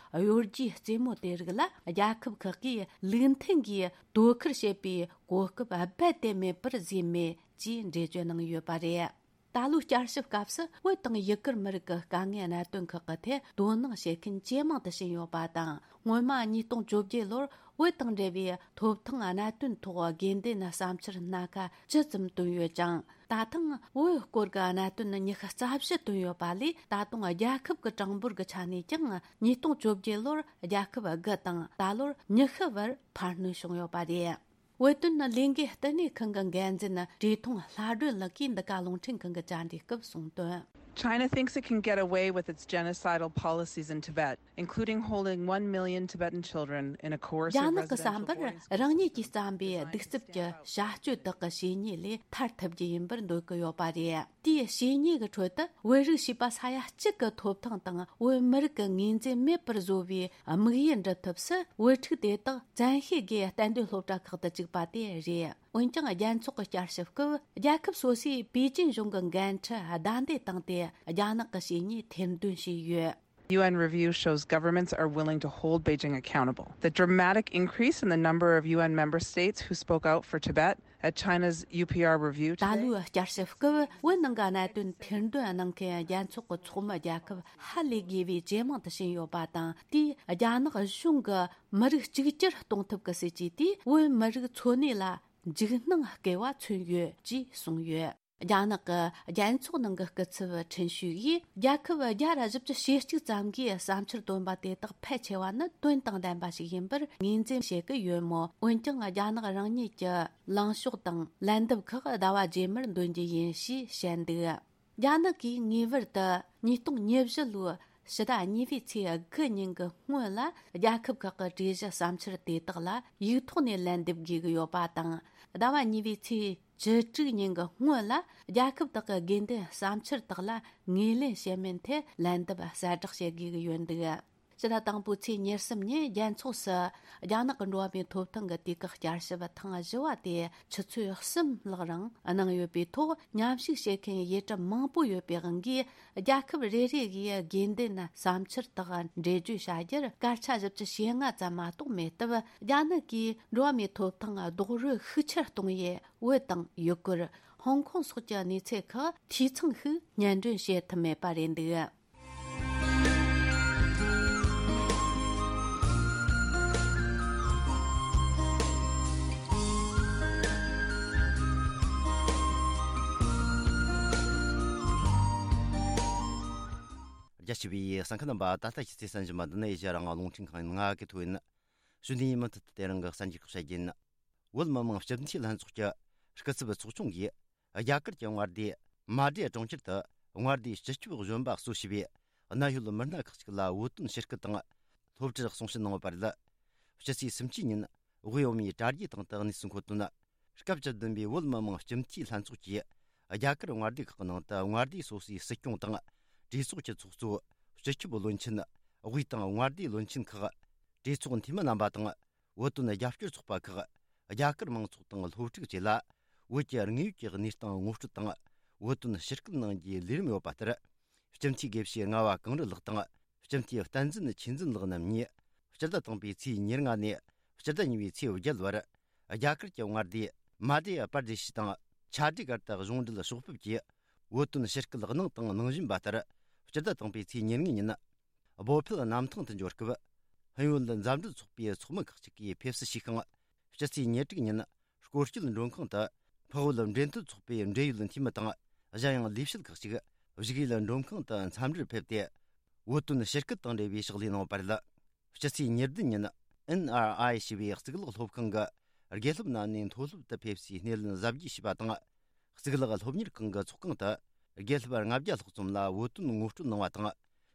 གཡོ་སྒྱུའི་རྩེད་མོ་དེ་རིགས་ལ་རྒྱལ་ཁབ་ཁག་གིས་ལུགས་མཐུན་གྱིས་དོ་ཁུར་བྱེད་པའི་གོ་སྐབས་རྦད་དེ་མེད་པར་བཟོས་མེད་ཅེས་འགྲེལ་བརྗོད་གནང་ཡོད་པ་རེད། ད་ལོའི་བསྐྱར་ཞིབ་སྐབས་སུ། བོད་དང་ཡུ་གུར་མི་རིགས་ཀྱི་དཀའ་ངལ་གནད་དོན་ཁག་གི་ཐད་དོ་སྣང་བྱེད་མཁན་ཇེ་མང་དུ་ཕྱིན་ཡོད་པ་དང་། སྔོན་མ་ཉིས་སྟོང་བཅོ་བརྒྱད་ལོར་བོད་དང་འབྲེལ་བའི་ཐོབ་ཐང་གནད་དོན་ཐོག་དགོས་འདུན་བསམ་འཆར་སྣ་ཁ་བཅུ་ཙམ་བཏོན་ཡོད་ཅིང་། ད་ཐེངས་བོད་སྐོར་གྱི་གནད་དོན་ཉི་ཤུ་རྩ་བཞི་བཏོན་ཡོད་པ་ལས། ད་དུང་རྒྱལ་ཁབ་ཀྱི་གྲངས་འབོར་གྱི་ཆ་ནས་ཀྱང་། ཉིས་སྟོང་བཅོ་བརྒྱད་ལོར་རྒྱལ་ཁབ་དགུ་དང་། ད་ལོར་ཉི་ཤུ་བར་འཕར་སྣོན་བྱུང་ཡོད་པ་རེད། བོད་དོན་ལས་འགུལ་བསྟི་གནས་ཁང་གི་འགན་འཛིན་བཀྲས་མཐོང་ལྷ་སྒྲོན་ལགས་ཀྱིས་འདི་ག་རླུང་འཕྲིན་ཁང་གི་བཅར་འདྲིའི་སྐབས་གསུངས་དོན། China thinks it can get away with its genocidal policies in Tibet, including holding one million Tibetan children in a coercive རྒྱ་ནག་གི་བསམ་པར། རང་ཉིད་ཀྱིས་བརྩམས་པའི་གདུག་རྩུབ་ཀྱི་བྱ་སྤྱོད་དག་གི་བྱས་ཉེས་ལས་ཐར་ཐུབ་རྒྱུ་ཡིན་པར་འདོད་ཀྱི་ཡོད་པ་རེད། དེའི་བྱས་ཉེས་ཀྱི་ཁྲོད་དུ། བོད་རིགས་བྱིས་པ་ས་ཡ་གཅིག་གི་ཐོབ་ཐང་དང་། བོད་མི་རིགས་ཀྱི་ངོས་འཛིན་མེད་པར་བཟོ་བའི་དམིགས་ཡུལ་འགྲུབ་ཐབས་སུ། བོད་ཕྲུག་དེ་དག་བཙན་ཤེད་ཀྱིས་གཏན་སྡོད་སློབ་གྲྭ་ཁག་ཏུ་བཅུག་པ་དེ་རེད། འོན་ཀྱང་། རྒྱལ་ཚོགས་ཀྱི་བསྐྱར་ཞིབ་སྐབས། རྒྱལ་ཁབ་སོ་སོས་པེ་ཅིན་གཞུང་གི་འགན་འཁྲི་བདའ་འདེད་བཏང་སྟེ། རྒྱ་ནག་གི་བྱས་ཉེས་ཐེར་འདོན་བྱས་ཡོད། U N review shows governments are willing to hold Beijing accountable. The dramatic increase in the number of U N member states who spoke out for Tibet at China's U P R review ད today ལོའི་བསྐྱར་ཞིབ་སྐབས་བོད་ནང་གི་གནད་དོན་ཐེར་འདོན་གནང་མཁན་རྒྱལ་ཚོགས་ཀྱི་ཚོགས་མི་རྒྱལ་ཁབ་ཧ་ལས་དགོས་པའི་ཇེ་མང་དུ་ཕྱིན་ཡོད་པ་དང་། དེས་རྒྱ་ནག་གཞུང་གི་མི་རིགས་གཅིག་གྱུར་གཏོང་ཐབས་ཀྱི་སྲིད་ཇུས་དེས་བོད་མི་རིགས་འཚོ་གནས་ལ་འཇིགས་སྣང་སྐྱེ་བ་མཚོན་ཡོད་ཅེས་གསུངས་ཡོད། རྒྱ་ནག་གི་རྒྱལ་ཚོགས་ནང་གི་སྐུ་ཚབ་ཁྲིན་ཤུས་ཀྱིས། རྒྱལ་ཁབ་བརྒྱ་དང་བཞི་བཅུ་ཞེ་གཅིག་ཙམ་གྱིས་བསམ་འཆར་བཏོན་པ་དེ་དག་ཕལ་ཆེ་བ་ནི་དོན་དང་ལྡན་པ་ཞིག་ཡིན་པར་ངོས་འཛིན་བྱེད་ཀྱི་ཡོད་མོད། འོན་ཀྱང་རྒྱ་ནག་རང་ཉིད་ཀྱི་ལངས་ཕྱོགས་དང་ལན་འདེབས་ཁག་ཟླ་བ་རྗེས་མར་འདོན་རྒྱུ་ཡིན་ཞེས་བཤད་འདུག་རྒྱ་ནག་གིས་ངེས་པར་དུ་ཉིས་སྟོང་ཉེར་བཞི་ལོའི་ཕྱི་ཟླ་གཉིས་པའི་ཚེས་དགུ་ཉིན་གྱི་སྔོན་ལ། རྒྱལ་ཁབ་ཁག་གི་གྲོས་གཞི་བསམ་འཆར་དེ་དག་ལ་ཡིག་ཐོག་ནས་ལན་འདེབས་དགོས་ཀྱི་ཡོད་པ་དང་། ཟླ་བ་གཉིས་པའི་ཚེས་བཅུ་དྲུག་ཉིན་གྱི་སྔོན་ལ། རྒྱལ་ཁབ་དག་གི་དགོས་འདུན་བསམ་འཆར་དག་ལ་ངོས་ལེན་བྱེད་མིན་ཐད་ལན་འདེབས་གསལ་བསྒྲགས་བྱེད་དགོས་ཀྱི་ཡོད་འདུག་ཕྱི་ཟླ་དང་པོའི་ཚེས་ཉེར་གསུམ་ཉིན་རྒྱལ་ཚོགས་སུ་རྒྱ་ནག་གི་འགྲོ་བ་མིའི་ཐོབ་ཐང་གི་དུས་བཀག་བསྐྱར་ཞིབ་ཐེངས་བཞི་བ་དེ་ཆུ་ཚོད་གསུམ་ལྷག་རིང་གནང་ཡོད་པའི་ཐོག་མཉམ་ཞུགས་བྱེད་མཁན་ཡུལ་གྲུ་མང་པོ་ཡོད་པའི་དབང་གིས། རྒྱལ་ཁབ་རེ་རེ་གིས་དགོས་འདུན་བསམ་འཆར་དག་འགྲེལ་བརྗོད་བྱ་རྒྱུར་སྐར་ཆ་བཞི་བཅུ་ཞེ་ལྔ་ཙམ་མ་གཏོགས་མེད་སྟབས། རྒྱ་ནག་གིས་འགྲོ་བ་མིའི་ཐོབ་ཐང་རྡོག་རོལ་ཤུགས་ཆེར་གཏོང་ཡུལ་བོད་དང་ཡུ་གུར། ཧོང་ཀོང་སོགས་ཀྱི་གནས་ཚུལ་ཁག་འཐུས་ཚང་ཞིག་སྙན་སྒྲོན་བྱེད་ཐུབ་མེད་པ་རེད་འདུག་རྒྱ་ཆེ་བའི་གསན་མཁན་རྣམ་པ། ད་ལྟ་ཁྱེད་ཚོས་གསན་བཞིན་པ་འདི་ནི་ཨེ་ཤ་ཡ་རང་དབང་རླུང་འཕྲིན་ཁང་ཡིན། ང་གི་ཐོ་ཡིན། གཞུག་ནས་མུ་མཐུད་དུ་དེ་རིང་གི་གསར་འགྱུར་ཁག་བཤད་རྒྱུ་ཡིན། བོད་མི་མང་སྤྱི་འཐུས་ལྷན་ཚོགས་ཀྱི་སྐུ་ཚབ་ཚོགས་ཆུང་གིས། རྒྱ་གར་གྱི་མངའ་སྡེ་མ་ཌེ་གྲོང་ཁྱེར་དུ་མངའ་སྡེའི་སྤྱི་ཁྱབ་གཞོན་པ་གཙོ་བྱས་པའི་གནད་ཡོད་མི་སྣ་ཁག་ཅིག་ལ་བོད་དོན་ཞུ་སྐུལ་དང་། སློབ་ཁྲིད་གསུང་བཤད་གནང་ཡོད་པ་རེད། ཕྱི་ཚེས་སུམ་ཅུ་ཉིན་དབུས་འོས་མིའི་དྲ་རྒྱའི་སྟེང་དུ་གནས་ཚུལ་འཁོད་དོན། སྐབས་བཅུ་བདུན་པའི་བོད་མི་མང་སྤྱི་འཐུས་ལྷན་ཚོགས་ཀྱིས་རྒྱ་གར་མངའ་སྡེ་ཁག་གི་ནང་དུ་མངའ་སྡེ་སོ་སོའི་སྲིད་སྐྱོང་དང་། གྲོས་ཚོགས་ཀྱི་ཚོགས་གཙོ། སྤྱི་ཁྱབ་བློན་ཆེན། དབུས་དང་མངའ་སྡེའི་བློན་ཆེན་ཁག་གྲོས་ཚོགས་འཐུས་མི་རྣམ་པ་དང་། བོད་དོན་རྒྱབ་སྐྱོར་ཚོགས་པ་ཁག་རྒྱ་གར་མང་ཚོགས་དང་སློབ་ཕྲུག་བཅས་ལ། བོད་ཀྱི་དངོས་ཡོད་ཀྱི་གནས་སྟངས་ངོ་སྤྲོད་དང་། བོད་དོན་ཞུ་སྐུལ་གནང་རྒྱུའི་ལས་རིམ་ཡོད་པ་ལྟར། སྤྱི་འཐུས་དགེ་བཤེས་ལྔ་པ་གངས་རི་ལགས་དང་། སྤྱི་འཐུས་བསྟན་འཛིན་ཆོས་འཛིན་ལགས་རྣམ་གཉིས། སྤྱི་ཟླ་དང་པོའི་ཚེས་ཉེར་ལྔ་ནས་སྤྱི་ཟླ་གཉིས་པའི་ཚེས་བརྒྱད་བར། རྒྱ་གར་གྱི་མངའ་སྡེ་མ་དྷྱ་པར་དེ་ཤི་དང་ཆ་འགྲིག་སྒར་དུ་གཞུང་འབྲེལ་ཕྱོགས་ཕེབས་ཀྱིས་བོད་དོན་ཞུ་སྐུལ་གནང་དང་གནང་བཞིན་པ་ལྟར། སྤྱི་ཟླ་དང་པོའི་ཚེས་ཉེར་ལྔ་ཉིན། བོད་ཕེབས་གནམ་ཐང་དུ་འབྱོར་སྐབས། ཧིན་བོད་མཛའ་འབྲེལ་ཚོགས་པའི་ཚོགས་མི་ཁག་ཅིག་གིས་ཕེབས་བསུ་ཞུས་ཤིང་། སྤྱི་ཚེས་ཉེར་དྲུག་ཉིན། སྐོར་སྐྱོད་མགྲོན་ཁང་དུ་འཕགས་བོད་འབྲེལ་མཐུད་ཚོགས་པའི་འབྲེལ་ཡོད་འཐུས་མི་དང་། གཞན་ཡང་ལས་བྱེད་ཁག་ཅིག་བཞུགས་ཡུལ་མགྲོན་ཁང་དུ་འཚམས་འདྲིར་ཕེབས་ཏེ། བོད་དོན་ཞུ་སྐུལ་དང་འབྲེལ་བའི་ཕྱག་ལས་གནང་བ་རེད། སྤྱི་ཚེས་ཉེར་བདུན་ཉིན། ཨེན་ཨར་ཨའི་ཞེས་པའི་གཙུག་ལག་སློབ་ཁང་གི་དགེ་སློབ་རྣམས་ནས་མཐོ་སློབ་ཏུ་ཕེབས་སའི་སྣེ་ལེན་གཟབ་རྒྱས་བྱས་པ་དང་། གཙུག་ལག་སློབ་གཉེར་ཁང་གི་ཚོགས་ཁང་དུ་དགེ་སློབ་ལྔ་བརྒྱ་ལྷག་ཙམ་ལ་བོད་དོན་ངོ་སྤྲོད་གནང་བ་དང་།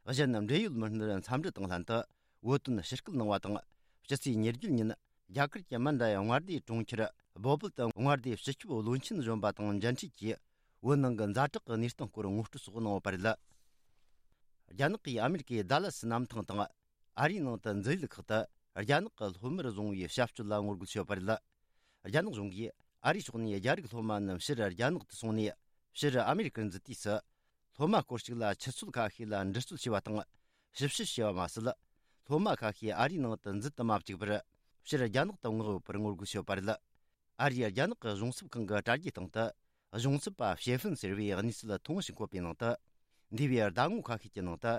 གཞན་འབྲེལ་ཡོད་མི་སྣར་འཚམས་འདྲི་དང་ལྷན་དུ་བོད་དོན་ཞུ་སྐུལ་གནང་བ་དང་། སྤྱི་ཚེས་ཉེར་བརྒྱད་ཉིན་རྒྱ་གར་གྱི་མན་ཌ་ཡ་མངའ་སྡེའི་གྲོང་ཁྱེར་བོ་པལ་དུ་མངའ་སྡེའི་སྤྱི་ཁྱབ་བློན་ཆེན་གཞོན་པ་དང་མཇལ་འཕྲད་ཀྱིས། བོད་ནང་གི་ཛ་དྲག་གི་གནས་སྟངས་སྐོར་ངོ་སྤྲོད་སོགས་གནང་ཡོད་པ་རེད། རྒྱ་ནག་གིས་ཨ་མེ་རི་ཀའི་ཌ་ལ་སི་གནམ་ཐང་དང་། ཨ་རིའི་ནང་དུ་འཛིན་ཡུལ་ཁག་ཏུ་རྒྱ་ནག་གི་སློབ་མར་བཟུང་བའི་བྱ་སྤྱོད་ལ་ངོ་རྒོལ་བྱས་ཡོད་པ་རེད། རྒྱ་ནག་གཞུང་གིས་ཨ་རིའི་ཕྱོགས་ནས་རྒྱ་རིགས་སློབ་མ་རྣམས་ཕྱིར་རྒྱ་ནག་ཏུ་སོང་ནས། ཕྱིར་ཨ་མེ་རི་ཀར་འཛུལ་དུས་སུ། སློབ་མ་སྐོར་ཞིག་ལ་ཆུ་ཚོད་ཁ་ཤས་ལ་འདྲི་རྩོད་བྱས་པ་དང་། ཞིབ་བཤེར་བྱས་པ་མ་ཟད། སློབ་མ་ཁ་ཤས་ཨ་རིའི་ནང་དུ་འཛུལ་དུ་མ་བཅུག་པར། ཕྱིར་རྒྱ་ནག་ཏུ་མངགས་ཡོད་པར་ངོ་རྒོལ་བྱས་ཡོད་པ་རེད། ཨ་རིའི་རྒྱ་ནག་གི་གཞུང་ཚབ་ཁང་གི་དྲ་རྒྱའི་སྟེང་དུ། གཞུང་ཚབ་པ་ཞེ་ཧྥིན་ཟེར་བའི་གནས་ཚུལ་ཐོ་ངོ་ཞིག་འཁོད་པའི་ནང་དུ། འདས་པའི་ཟླ་ངོ་ཁ་ཤས་ཀྱི་ནང་དུ།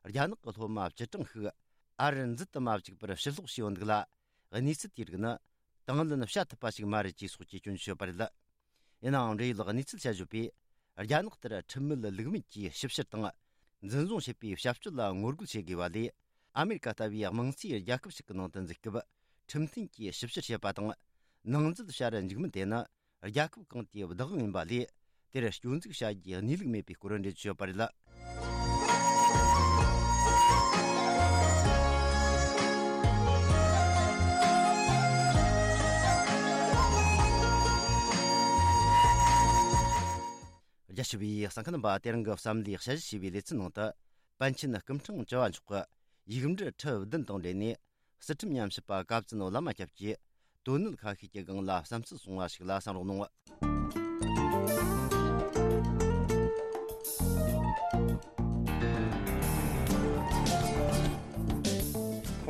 རྒྱ་ནག་གི་སློབ་མ་བཅུ་གྲངས་ཤིག་ཨ་རིར་འཛུལ་དུ་མ་བཅུག་པར་ཕྱིར་སློག་བྱས་ཡོད་འདུག་ལ། གནས་ཚུལ་དེའི་རིགས་ནི། དང་ལེན་བྱ་ཐུབ་པ་ཞིག་མ་རེད་ཅེས་སོགས་ཀྱི་སྐྱོན་བརྗོད་བྱས་ཡོད་པ་རེད། ཡིན་ནའང་། འབྲེལ་ཡོད་གནས་ཚུལ་དཔྱད་བརྗོད་པས། རྒྱ་ནག་ལྟར་ཁྲིམས་མེད་ལུགས་མེད་ཀྱིས་ཞིབ་བཤེར་དང་། འཛིན་བཟུང་བྱེད་པའི་བྱ་སྤྱོད་ལ་ངོ་རྒོལ་བྱེད་དགོས་པ་ལས། ཨ་མེ་རི་ཀ་ལྟ་བུའི་དམངས་གཙོའི་རྒྱལ་ཁབ་ཞིག་གི་ནང་དུ་འཛུལ་སྐབས། ཁྲིམས་མཐུན་གྱིས་ཞིབ་བཤེར་བྱེད་པ་དང་། ནང་འཛུལ་བྱ་རུ་འཇུག་མིན་དེ་ནི། རྒྱལ་ཁབ་གང་དེའི་བདག་དབང་ཡིན་པ་ལས། དེར་སྐྱོན་འཛུགས་བྱ་རྒྱུའི་གནས་ལུགས་མེད་པའི་སྐོར་འགྲེལ་བརྗོད་བྱས་ཡོད་པ་རེད། རྒྱ་ཆེ་བའི་གསན་མཁན་རྣམ་པ། དེ་རིང་གི་བསམ་བློའི་དཔྱད་གཞི་ཞེས་པའི་ལེ་ཚན་ནང་དུ། པཎ་ཆེན་སྐུ་ཕྲེང་བཅུ་བ་མཆོག་གི་ཡིག་འབྲུ་ཁྲི་བདུན་དང་འབྲེལ་ནས། སི་ཁྲོན་ཉམས་ཞིབ་པ་བཀའ་བཙུན་བླ་མ་སྐྱབས་ཀྱིས་དོན་གནད་ཁ་ཤས་ཀྱི་སྒང་ལ་བསམ་ཚུལ་གསུངས་པ་ཞིག་ལ་གསན་རོགས་གནང་།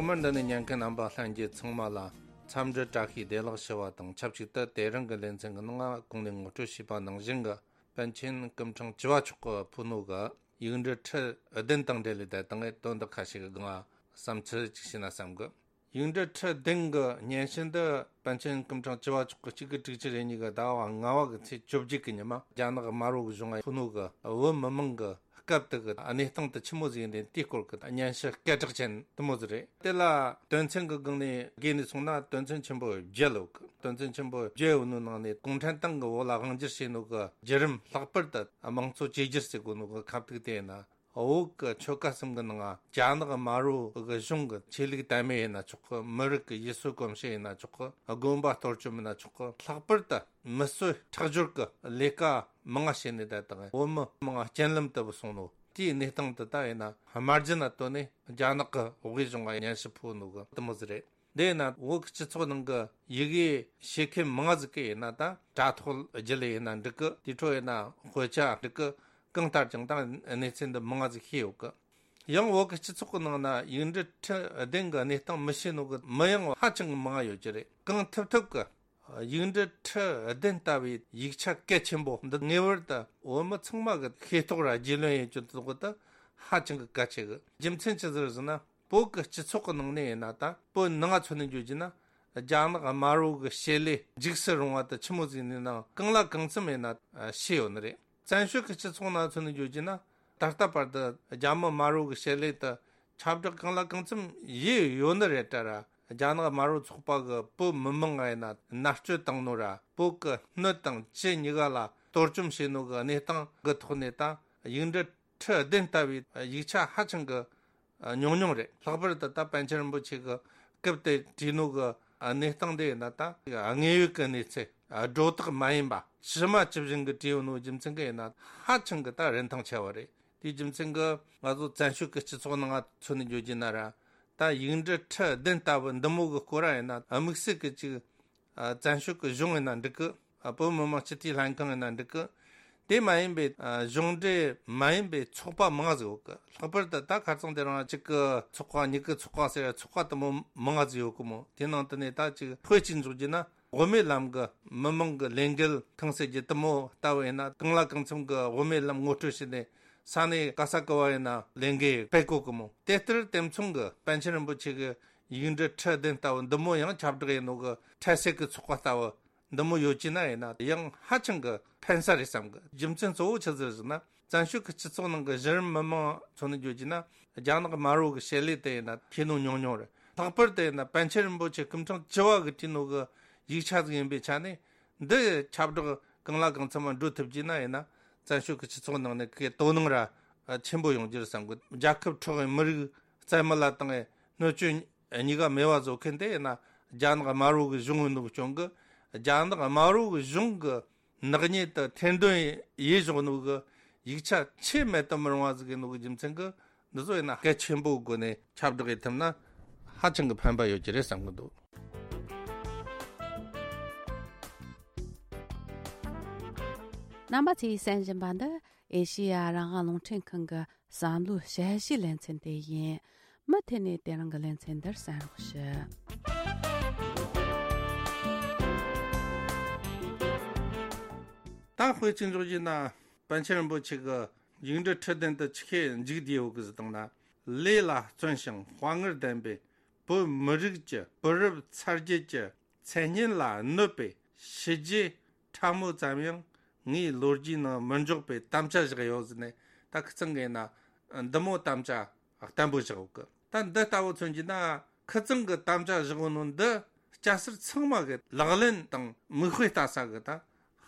ཐོག་མར་འདི་ནས་ཉན་མཁན་རྣམ་པ་ལྷན་རྒྱས་ཚང་མ་ལ་འཚམས་འདྲི་བཀྲ་ཤིས་བདེ་ལེགས་ཞུ་བ་དང་ཆབས་ཅིག་ཏུ། དེ་རིང་གི་ལེ་ཚན་གྱི་ནང་གོང་ནས་ངོ་སྤྲོད་བྱས་པ་ནང་བཞིན་གྱི་པཎ་ཆེན་སྐུ་ཕྲེང་བཅུ་བ་མཆོག་གིས་ཕུལ་ནོ་གི་ཡིག་འབྲུ་ཁྲི་བདུན་དང་འབྲེལ་ལས་བསྡད་དང་དོན་དག་ཁ་ཤས་ཀྱི་སྒང་བསམ་ཚུལ་ཅིག་བྱས་ན་བསམ་གི། ཡིག་འབྲུ་ཁྲི་བདུན་གྱི་སྙན་ཞུ་འདི་པཎ་ཆེན་སྐུ་ཕྲེང་བཅུ་བ་མཆོག་གི་གཅིག་དགུ་དྲུག་ཅུ་རེ་གཉིས་ཀྱི་ཟླ་བ་ལྔ་བ་གི་ཚེས་བཅོ་བརྒྱད་ཀྱི་ཉི་མ་རྒྱ་ནག་དམར་པོ་གི་གཞུང་ང་ཕུལ་ནོ་གི་བོད་མི་མང་གི་སྐབས་དེ་གི་གནས་སྟངས་དེ་ཆི་མོ་ཟིག་ཡིན་དེ་དེའི་སྐོར་གྱི་སྙན་ཞུ་སྐད་གྲགས་ཅན་དེ་མོ་ཟིག་རེད། དེ་ལ་དོན་ཚན་གྱི་སྒང་ནས་བགོས་ནས་སོང་ན་དོན་ཚན་ཆེན་པོ་བརྒྱད་ཡོད་གི། དོན་ཚན་ཆེན་པོ་བརྒྱད་ཡོད་ནོ་ནང་ནས་གུང་ཁྲན་ཏང་གི་འོག་ལ་དབང་སྒྱུར་བྱས་ནོ་གི་བརྒྱུད་རིམ། ལྷག་པར་དུ་དམངས་གཙོ་བཅོས་བསྒྱུར་ཟེར་གོ་ནོ་གི་ཁ་ཐུག་དེ་ཡིན་ན། བོད་ཀྱི་ཆོལ་ཁ་གསུམ་གྱི་ནང་རྒྱ་ནག་དམར་པོ་གི་གཞུང་གི་ཆོས་ལུགས་དད་མོས་ཡིན་ན་ཆོག་གི། མི་རིགས་ཀྱི་ཡུལ་སྲོལ་གོམས་གཤིས་ཡིན་ན་ཆོག་གི། དགོན་པ་གཏོར་བཅོམ་ཡིན་ན་ཆོག་གི། ལྷག་པར་དུ་མི་གསོད་ཁྲག་སྦྱོར་གྱི་ལས་ཀ་མང་ང་བྱས་ནས་བསྡད་དང་བོད་མི་མང་ང་རྐྱེན་ལམ་དུ་སོང་ནོ་དེའི་གནས་སྟངས་དེ་ད་ཡིན་ན་དམར་རྗེན་ལ་བཏོན་ནས་རྒྱ་ནག་གི་དབུས་གཞུང་ང་སྙན་ཞུ་ཕུལ་ནོ་གི་དེ་མོ་ཟིག་རེད། དེ་ཡིན་ན་བོད་ཀྱི་སྤྱི་ཚོགས་ནང་གི་ཡི་གེ་ཤེས་མཁན་མང་ང་ཟིག་གིས་ཡིན་ན་ད་དྲ་ཐོག་བརྒྱུད་ལས་ཡིན་ན་འགྲིག་གི། དེ་འཕྲོ་ཡིན་ན་དཔེ་ཆ་འགྲིག་གི། གང་ལྟར་ཀྱང་ད་གནས་ཚུལ་འདི་མང་ང་ཟིག་ཤེས་ཡོད་གི། ཡང་བོད་ཀྱི་སྤྱི་ཚོགས་ཀྱི་ནང་ན་ཡིག་འབྲུ་ཁྲི་བདུན་གྱི་གནས་སྟངས་མི་ཤེས་ནོ་གི་མི་ཡང་ཧ་ཅང་གི་མང་ང་ཡོད་ཀྱི་རེད། གང་ཐུབ་ཐུབ་གི་ཡིག་འབྲུ་ཁྲི་བདུན་ལྟ་བུའི་ཡིག་ཆ་གལ་ཆེན་པོ་འདི་ངེས་པར་དུ་བོད་མི་ཚང་མ་གི་ཤེས་རྟོགས་ར་རྒྱུས་ལོན་ཡེད་རྒྱུ་དེ་ད་ཧ་ཅང་གི་གལ་ཆེ་གི། རྒྱུ་མཚན་ཅི་ཟིག་རེད་ཟེར་ན། བོད་ཀྱི་སྤྱི་ཚོགས་ཀྱི་ནང་ནས་ཡིན་ན་ད་བོད་ནང་ང་མཚོན་ནས་བརྗོད་རྒྱུ་ན། རྒྱ་ནག་དམར་པོ་གི་བྱེད་ལས་འཇིགས་སུ་རུང་བ་དེ་ཆི་མོ་ཟིག་ཡིན་ནའང་གང་ལ་གང་འཚམ་ཡིན་ན་ཤེས་ཡོད་ནི་རེད། བཙན་བྱོལ་གྱི་སྤྱི་ཚོགས་ནང་མཚོན་ནས་བརྗོད་རྒྱུ་ན། ད་ལྟ་བར་དུ་རྒྱ་མི་དམར་པོ་གི་བྱེད་ལས་དེ་ཁྱབ་བསྒྲགས་གང་ལ་གང་འཚམ་ཡེད་ཡོད་ནི་རེད་ད་ར། རྒྱ་ནག་དམར་པོ་ཚོགས་པ་གི་བོད་མི་མང་ང་ཡིན་ན་མནར་གཅོད་བཏང་ནོ་ར། བོད་ཀྱི་སྣོད་དང་ལྕེ་གཉིས་ཀ་ལ་གཏོར་བཅོམ་བྱས་ནོ་གི་གནས་སྟངས་གི་ཐོག་ནས་ད་ཡིག་འབྲུ་ཁྲི་བདུན་ལྟ་བུའི་ཡིག་ཆ་ཧ་ཅང་གི་ཉུང་ཉུང་རེད། ལྷག་པར་དུ་ད་པཎ་ཆེན་རིན་པོ་ཆེ་གི་སྐབས་དེ་བྲིས་ནོ་གི་གནས་སྟངས་དེ་ཡིན་ན་ད་དངོས་ཡོད་ཀྱི་གནས་ཚུལ་སྒྲོ་བཏགས་མ་ཡིན་པ་ཇི་མ་ཇི་བཞིན་གྱི་བྲིས་ཡོད་ནོ་རྒྱུ་མཚན་གྱིས་ཡིན་ན་ཧ་ཅང་གི་ད་རིན་ཐང་ཆེ་བ་རེད། དེའི་རྒྱུ་མཚན་གྱིས་ང་ཚོ་བཙན་བྱོལ་གྱི་སྤྱི་ཚོགས་ནང་ང་མཚོན་ནས་བརྗོད་རྒྱུ་ན་ར། ད་ཡིག་འབྲུ་ཁྲི་བདུན་ལྟ་བུ་འདི་མོ་གི་སྐོར་ར་ཡིན་ན་དམིགས་བསལ་གྱི་ཅིག་ཨ། བཙན་བྱོལ་གྱི་གཞུང་ཡིན་ན་འགྲིག་གི། ཨ། བོད་མི་མང་སྤྱི་འཐུས་ལྷན་ཁང་ཡིན་ན་འགྲིག་གི། དེ་མ་ཡིན་པའི་ཨ། གཞུང་འབྲེལ་མ་ཡིན་པའི་ཚོགས་པ་མང་ཟིག་ཡོད་གི། ལྷག་པར་དུ་ད་ཁ་རྩང་དེ་རིང་གཅིག་གི་ཚོགས་པ་གཉིས་ཀྱི་ཚོགས་པ་ཟེར་ཚོགས་པ་དེ་མོ་མང་ཟིག་ཡོད་གི་མོ། དེ་ནང་དུ་ནས་ད་ཅིག་དཔེ་གཅིག་འཇོག་རྒྱུ་ན་དབུ་མའི་ལམ་གྱི་མི་མང་གི་ལས་འགུལ་ཁང་ཟེར་རྒྱུ་དེ་མོ་ལྟ་བུ་ཡིན་ན་གང་ལ་གང་འཚམ་གྱི་དབུ་མའི་ལམ་ངོ་སྤྲོད་བྱས་ནས། ས་གནས་ག་ས་ག་བ་ཡིན་ན་ལས་འགུལ་སྤེལ་གོ་གི་མོ། དེ་ལྟར་དེ་མཚུངས་ཀྱི་པཎ་ཆེན་རིན་པོ་ཆེ་གི་ཡིག་འབྲུ་ཁྲི་བདུན་ལྟ་བུ་འདི་མོ་ཡང་ཁྱབ་བསྒྲགས་ཡིན་ནོ་གི་འཕྲལ་སེལ་གྱི་ཚོགས་པ་ལྟ་བུ་འདི་མོ་ཡོད་ཀྱི་ན་ཡིན་ན་ཡང་ཧ་ཅང་གི་ཕན་ས་རེད་བསམ་གི། རྒྱུ་མཚན་གཙོ་བོ་ཆི་ཟིག་ཟེར་ན། བཙན་བྱོལ་གྱི་སྤྱི་ཚོགས་ནང་གི་གཞི་རིམ་མི་མང་ཚོ་ནས་བརྗོད་རྒྱུ་ན་རྒྱ་ནག་དམར་པོ་གི་བྱེད་ལས་དེ་ཡིན་ན་ཤེས་ནོ་ཉུང་ཉུང་རེད། ལྷག་པར་དུ་ཡིན་ན་པཎ་ཆེན་རིན་པོ་ཆེ་སྐུ་ཕྲེང་བཅུ་བ་གི་བྲིས་ནོ་གི་ཡིག་ཆ་ཟིག་ཡིན་པའི་ཆ་ནས། འདི་ཁྱབ་བསྒྲགས་གང་ལ་གང་འཚམ་མ་འགྲོ་ཐུབ་ཀྱི་ན་ཡིན་ན། བཙན་བྱོལ་གྱི་སྤྱི་ཚོགས་ནང་ནས་ཁོའི་དོ་སྣང་ར་ཆེན་པོ་ཡོང་རྒྱུ་རེད་བསམ་གི། རྒྱལ་ཁབ་འཕྲོག་གི་མི་རིགས་རྩ་མེད་ལ་བཏང་གི་སྣོད་བཅུད་གཉིས་ཀ་མེད་པ་བཟོ་མཁན་དེ་ཡིན་ན་རྒྱ་ནག་དམར་པོ་གི་གཞུང་ཡིན་ནོ་གི་རྐྱེན་གི། རྒྱ་ནག་དམར་པོ་གི་གཞུང་གི་ནག་ཉེས་དེ་ཐེར་འདོན་ཡེ་བཞག་ནོ་གི་ཡིག་ཆ་ཆེས་མེད་དུ་མི་རུང་བ་ཟིག་ཡིན་ནོ་གི་རྒྱུ་མཚན་གི། འདི་ཚོ་ཡིན་ན་གལ་ཆེན་པོའི་སྒོ་ནས་ཁྱབ་བསྒྲགས་ཡེ་ཐུབ་ན་ཧ་ཅང་གི་ཕན་པ་ཡོད་ཀྱི་རེད་བསམ་གི་འདུག། རྣམ་པ་ཚོས་གསན་བཞིན་པ་འདི་ཨེ་ཤེ་ཡ་རང་དབང་རླུང་འཕྲིན་ཁང་གི་བསམ་བློའི་དཔྱད་གཞིའི་ལེ་ཚན་དེ་ཡིན། མུ་མཐུད་ནས་དེ་རིང་གི་ལེ་ཚན་འདིར་གསན་རོགས་ཞུ། ད་དཔེ་ཅིག་འཇོག་རྒྱུ་ན། པཎ་ཆེན་རིན་པོ་ཆེ་གི་ཡིག་འབྲུ་ཁྲི་བདུན་དུ་ཆི་ཁེ་འཇུག་བསྡད་ཡོད་གི་ཟེར་བཏང་ན། ལས་ལ་བརྩོན་ཞིང་དཔའ་ངར་ལྡན་པའི་བོད་མི་རིགས་ཀྱི་བུ་རབས་ཚ་རྒྱུད་ཀྱི་མཚན་སྙན་ལ་གནོད་པའི་ཞི་རྒྱས་ཕྲ་མོ་ཙམ་ཡང་ངའི་ལོ་རྒྱུས་ནང་མི་འཇོག་པའི་དམ་བཅའ་བཞག་ཡོད་ཟེར་ནས། ད་ཁི་ཚང་གི་ཡིན་ན་འདི་མོ་དམ་བཅའ་བརྟན་པོ་བཞག་ཡོད་གི། ད་འདི་ལྟ་བུ་མཚོན་རྒྱུ་ན། ཁི་ཚང་གི་དམ་བཅའ་བཞག་ཡོད་ནོ་འདི་སྐྱ་སེར་ཚང་མ་གི་ལག་ལེན་དང་མིག་དཔེ་ལྟ་ས་གི་ད་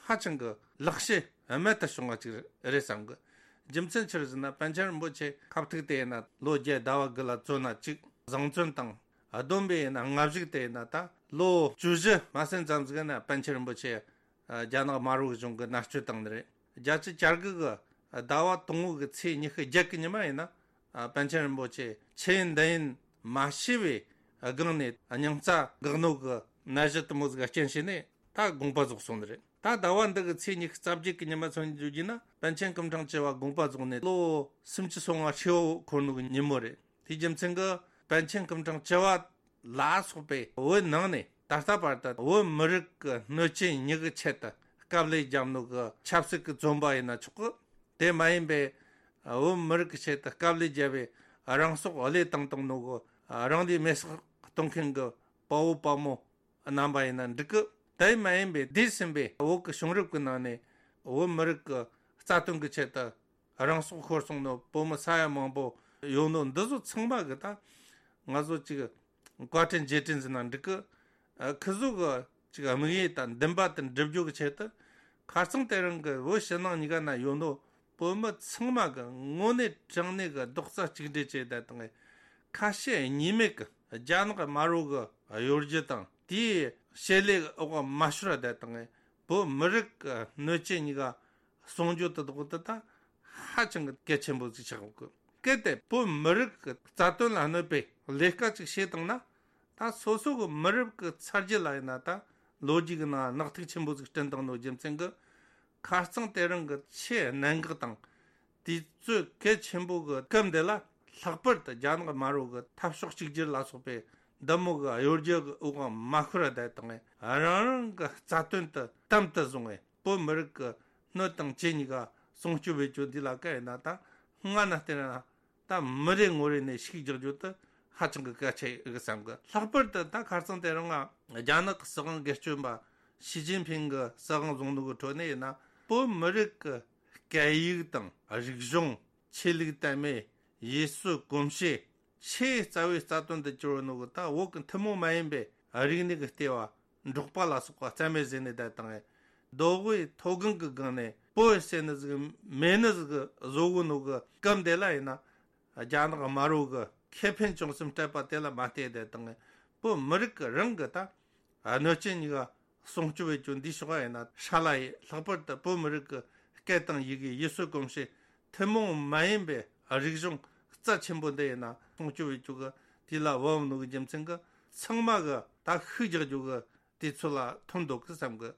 ཧ་ཅང་གི་ལེགས་བཤད་རྨད་དུ་བྱུང་བ་ཅིག་རེད་བསམ་གི། རྒྱུ་མཚན་ཆི་རེད་ཟེར་ན། པཎ་ཆེན་རིན་པོ་ཆེ་ཁ་ཐུག་དེ་ཡིན་ན་ལོ་བརྒྱད་ཟླ་བ་དགུ་ལ་བཙོན་ན་གཅིག་བཟང་བཙོན་དང་། བསྡོམས་པས་ཡིན་ན་སྔ་གཞུག་དེ་ཡིན་ན་ད་ལོ་བཅུ་བཞི་མ་ཟིན་ཙམ་ཟིག་ན་པཎ་ཆེན་རིན་པོ་ཆེ་རྒྱ་ནག་དམར་པོའི་གཞུང་གིས་མནར་གཅོད་བཏང་ནི་རེད། བརྒྱད་ཅུ་གྱ་དགུ་གི་ཟླ་བ་དང་པོ་གི་ཚེས་ཉི་ཤུ་བརྒྱད་གི་ཉི་མ་ཡིན་ན། ཨ། པཎ་ཆེན་རིན་པོ་ཆེ་ཆི་ཡིན་འདི་ཡིན་མ་ཤེས་པའི་སྒང་ནས་སྙིང་རྩ་འགག་ནོ་གི་ནད་གཞི་དེ་མོ་ཟིག་རྐྱེན་བྱས་ནས་ད་དགོངས་པ་རྫོགས་སོང་ནི་རེད། ད་ཟླ་བ་འདི་གི་ཚེས་ཉི་ཤུ་རྩ་བརྒྱད་གི་ཉི་མ་མཚོན་བརྗོད་རྒྱུ་ན། པཎ་ཆེན་སྐུ་ཕྲེང་བཅུ་བ་དགོངས་པ་རྫོགས་ནས་ལོ་སུམ་ཅུ་སོ་ལྔ་ཧྲིལ་བོ་འཁོར་ནོ་གི་ཉིན་མོ་རེད། དེའི་རྒྱུ་མཚན་གྱིས་ པཎ་ཆེན་སྐུ་ཕྲེང་བཅུ་བ་ལ་སོགས་པའི་བོད་ནང་ནས་ད་ལྟ་བར་དུ་བོད་མི་རིགས་ཀྱི་གནོད་སྐྱོན་གཉིས་ཀྱི་ཆེད་དུ་དཀའ་ལས་བརྒྱབ་ནོ་གི་ཆབ་སྲིད་ཀྱི་བཙོན་པ་ཡིན་ན་ཆོག་གི། དེ་མ་ཡིན་པའི་བོད་མི་རིགས་ཀྱི་ཆེད་དུ་དཀའ་ལས་བརྒྱབ་པའི་རང་སྲོག་བློས་བཏང་བཏང་ནོ་གི་རང་ལུས་མེར་སྲེག་གཏོང་མཁན་གྱི་དཔའ་བོ་དཔའ་མོ་རྣམ་པ་ཡིན་ན་འགྲིག་གི། དེ་མ་ཡིན་པའི་འདས་ཟིན་པའི་བོད་ཀྱི་བྱུང་རབས་ཀྱི་ནང་ནས་བོད་མི་རིགས་ཀྱི་རྩ་དོན་གྱི་ཆེད་དུ་རང་སྲོག་ཤོར་སོང་ནོ་བོད་མི་ས་ཡ་མང་པོ་ཡོད་ནོ་འདི་ཚོ་ཚང་མ་གི་ད་ང་ཚོ་ཅིག་བཀའ་དྲིན་རྗེས་དྲན་ཟེར་ན་འགྲིག་གི། ཨ། ཁི་ཚོ་གི་ཅིག་དམིགས་ཡུལ་དང་འདུན་པ་དེ་འགྲུབ་རྒྱུ་གི་ཆེད་དུ། ཁ་རྩང་དེ་རིང་གི་བོད་ཕྱི་ནང་གཉིས་ཀ་ན་ཡོད་ནོ་བོད་མི་ཚང་མ་གི་དངོས་གནས་དྲང་གནས་གི་རྡོག་རྩ་གཅིག་སྒྲིལ་བྱས་བསྡད་དང་། ཁ་ཞེ་གཉིས་མེད་གི་རྒྱ་ནག་དམར་པོ་གི་གཡོ་སྒྱུ་དང་དེའི་བྱེད་ལས་འོག་མ་ཤོར་བསྡད་དང་། བོད་མི་རིགས་གི་གནོད་སྐྱོན་གཉིས་ཀ་སྲུང་སྐྱོབ་དེ་དག་དེ་ད་ཧ་ཅང་གི་གལ་ཆེན་པོ་ཟིག་ཆགས་ཡོད་གི། གལ་ཏེ་བོད་མི་རིགས་ཀྱི་རྩ་དོན་ལ་གནོད་པའི་ལས་ཀ་ཅིག་བྱེད་བཏང་ན། ད་སོ་སོ་གི་མི་རིགས་ཀྱི་ཚ་རྒྱུད་ལ་ཡིན་ན་ད་ལོ་རྒྱུས་ཀྱི་ནང་ནག་ཐིག་ཆེན་པོ་ཟིག་བསྐྲུན་བཏང་ནོ་རྒྱུ་མཚན་གྱིས། ཁ་རྩང་དེ་རིང་གི་ཆེས་གནད་འགག་དང་དུས་ཚོད་གལ་ཆེན་པོ་གི་སྐབས་འདི་ལ། ལྷག་པར་དུ་རྒྱ་ནག་དམར་པོ་གི་འཐབ་ཕྱོགས་གཅིག་གྱུར་ལ་སོགས་པའི་འདི་མོ་གི་གཡོ་སྒྱུ་གི་འོག་མ་ཤོར་བསྡད་དང་། རང་རང་གི་རྩ་དོན་དེ་དམ་དུ་བཟུང་བའི་བོད་མི་རིགས་ཀྱི་གནོད་དང་སྐྱོན་གཉིས་ཀ་སྲུང་སྐྱོབ་བྱེད་རྒྱུ་འདི་ལ་གལ་ཡིན་ན། ད་སྔ་ན་བལྟས་ན་ད་མི་རེ་ངོ་རེ་ནས་ཤུགས་རྒྱག་རྒྱུ་དེ་ཧ་ཅང་གི་གལ་ཆེ་གི་བསམ་གི། ལྷག་པར་དུ་ད་ཁ་རྩང་དེ་རིང་ང་རྒྱ་ནག་གི་སྲིད་དབང་སྒེར་གཅོད་པ་ཞི་ཅིན་ཕིང་གི་སྲིད་དབང་བཟུང་ནོ་གི་ཁྲོད་ནས་ཡིན་ན། བོད་མི་རིགས་ཀྱི་སྐད་ཡིག་དང་རིག་གཞུང་། ཆོས་ལུགས་དད་མོས། ཡུལ་སྲོལ་གོམས་གཤིས། ཆེས་རྩ་བའི་རྩ་དོན་དུ་གྱུར་ནོ་གི་ད་བོད་ཀྱི་ཐུན་མོང་མ་ཡིན་པའི་རིག་གནས་ཀྱི་ལྟེ་བ་འབྲོག་པ་ལ་སོགས་པ་རྩ་མེད་བཟོས་ནས་བསྡད་དང་། མདོ་དབུས་མཐོ་སྒང་གི་སྒང་ནས་བོད་ཟེར་ནི་ཟིག་མེད་ནི་ཟིག་བཟོ་གོ་ནོ་གི་སྐབས་འདི་ལ་ཡིན་ན། རྒྱ་ནག་དམར་པོ་གི་ཁེ་ཕན་བྱུང་སེམས་སྤྲད་པ་དེ་ལ་མ་བལྟས་བསྡད་དང་། བོད་མི་རིགས་ཀྱི་རང་གི་ད་གནོད་སྐྱོན་གཉིས་ཀ་སྲུང་སྐྱོབ་བྱེད་རྒྱུ་འདི་ཕྱོགས་ཡིན་ན་ཧྲ་ལ་ཡི། ལྷག་པར་དུ་བོད་མི་རིགས་ཀྱི་སྐད་དང་ཡི་གེ། ཡུལ་སྲོལ་གོམས་གཤིས། ཐུན་མོང་མ་ཡིན་པའི་རིག་གཞུང་རྩ་ཆེན་པོ་འདི་ཡིན་ན་སྲུང་སྐྱོབ་བྱེད་རྒྱུ་གི་དེ་ལ་བབ་ནོ་གི་རྒྱུ་མཚན་གྱིས། ཚང་མ་གི་ད་ཤུགས་རྒྱག་རྒྱུ་གི་དུས་ཚོད་ལ་ཐོན་འདུག་གི་བསམ་གི།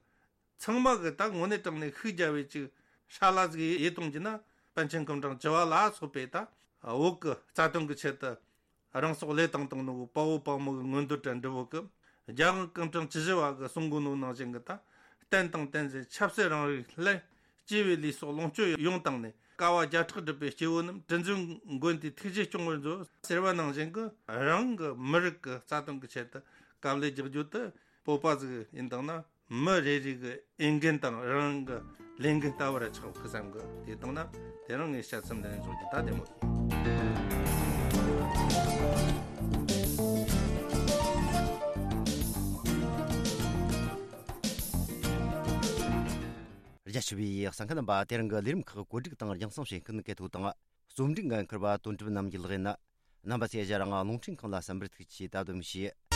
ཚང་མ་གི་ད་དངོས་གནས་དྲང་གནས་ཤུགས་རྒྱག་པའི་ཅིག་ཧྲ་ལ་ཟིག་ཡེ་གཏོང་རྒྱུ་ན། པཎ་ཆེན་སྐུ་ཕྲེང་བཅུ་བ་ལ་སོགས་པའི་ད་བོད་ཀྱི་རྩ་དོན་གྱི་ཆེད་དུ་རང་སྲོག་བློས་བཏང་བཏང་ནོ་དཔའ་བོ་དཔའ་མོ་གི་མངོན་འདོད་དང་འབྲེལ་བོ་གི། རྒྱལ་དབང་སྐུ་ཕྲེང་བཅུ་བཞི་བ་གི་གསུང་གོ་ནོ་ནང་བཞིན་གི་ད། བསྟན་དང་བསྟན་འཛིན་ཆབ་སྲིད་རང་རིགས་སླད། སྐྱེས་བུའི་ལུས་སྲོག་ལོངས་སྤྱོད་ཡོངས་བཏང་ནས། དཀའ་བ་བརྒྱ་ཕྲག་སྒྲུབ་པའི་སྐྱེ་བོ་རྣམས། དྲིན་གཟོའི་མགོན་དེའི་ཐུགས་རྗེས་སྐྱོང་བར་མཛོད། ཟེར་བ་ནང་བཞིན་གི་རང་གི་མི་རིགས་ཀྱི་རྩ་དོན་གྱི་ཆེད་དུ་དཀའ་ལས་རྒྱག་རྒྱུ་དེ་བོད་པ་ཟིག་ཡིན་དང་ན། མི་རེ་རེ་གི་འོས་འགན་དང་རང་གི་ལས་འགན་ལྟ་བུ་ར་ཆགས་གི་བསམ་གི། དེ་དང་ན་དེ་རིང་ངའི་དཔྱད་རྩོམ་འདི་ནས་རྫོགས་རྒྱུ། ད་བདེ་མོ་ཡིན། རྒྱ་ཆེ་བའི་གསན་མཁན་རྣམ་པ། དེ་རིང་གི་ལས་རིམ་ཁག་གོ་སྒྲིག་དང་རྒྱང་སྲིང་བྱེད་མཁན་གལ་ཐོག་དང་རྩོམ་སྒྲིག་འགན་འཁུར་བ་དོན་གྲུབ་རྣམ་རྒྱལ་ལགས་ཡིན། རྣམ་པ་ཚོས་ང་རང་རླུང་འཕྲིན་ཁང་ལ་གསན་པར་ཐུགས་རྗེ་ཆེ། ད་དུ་མི་ཤེས།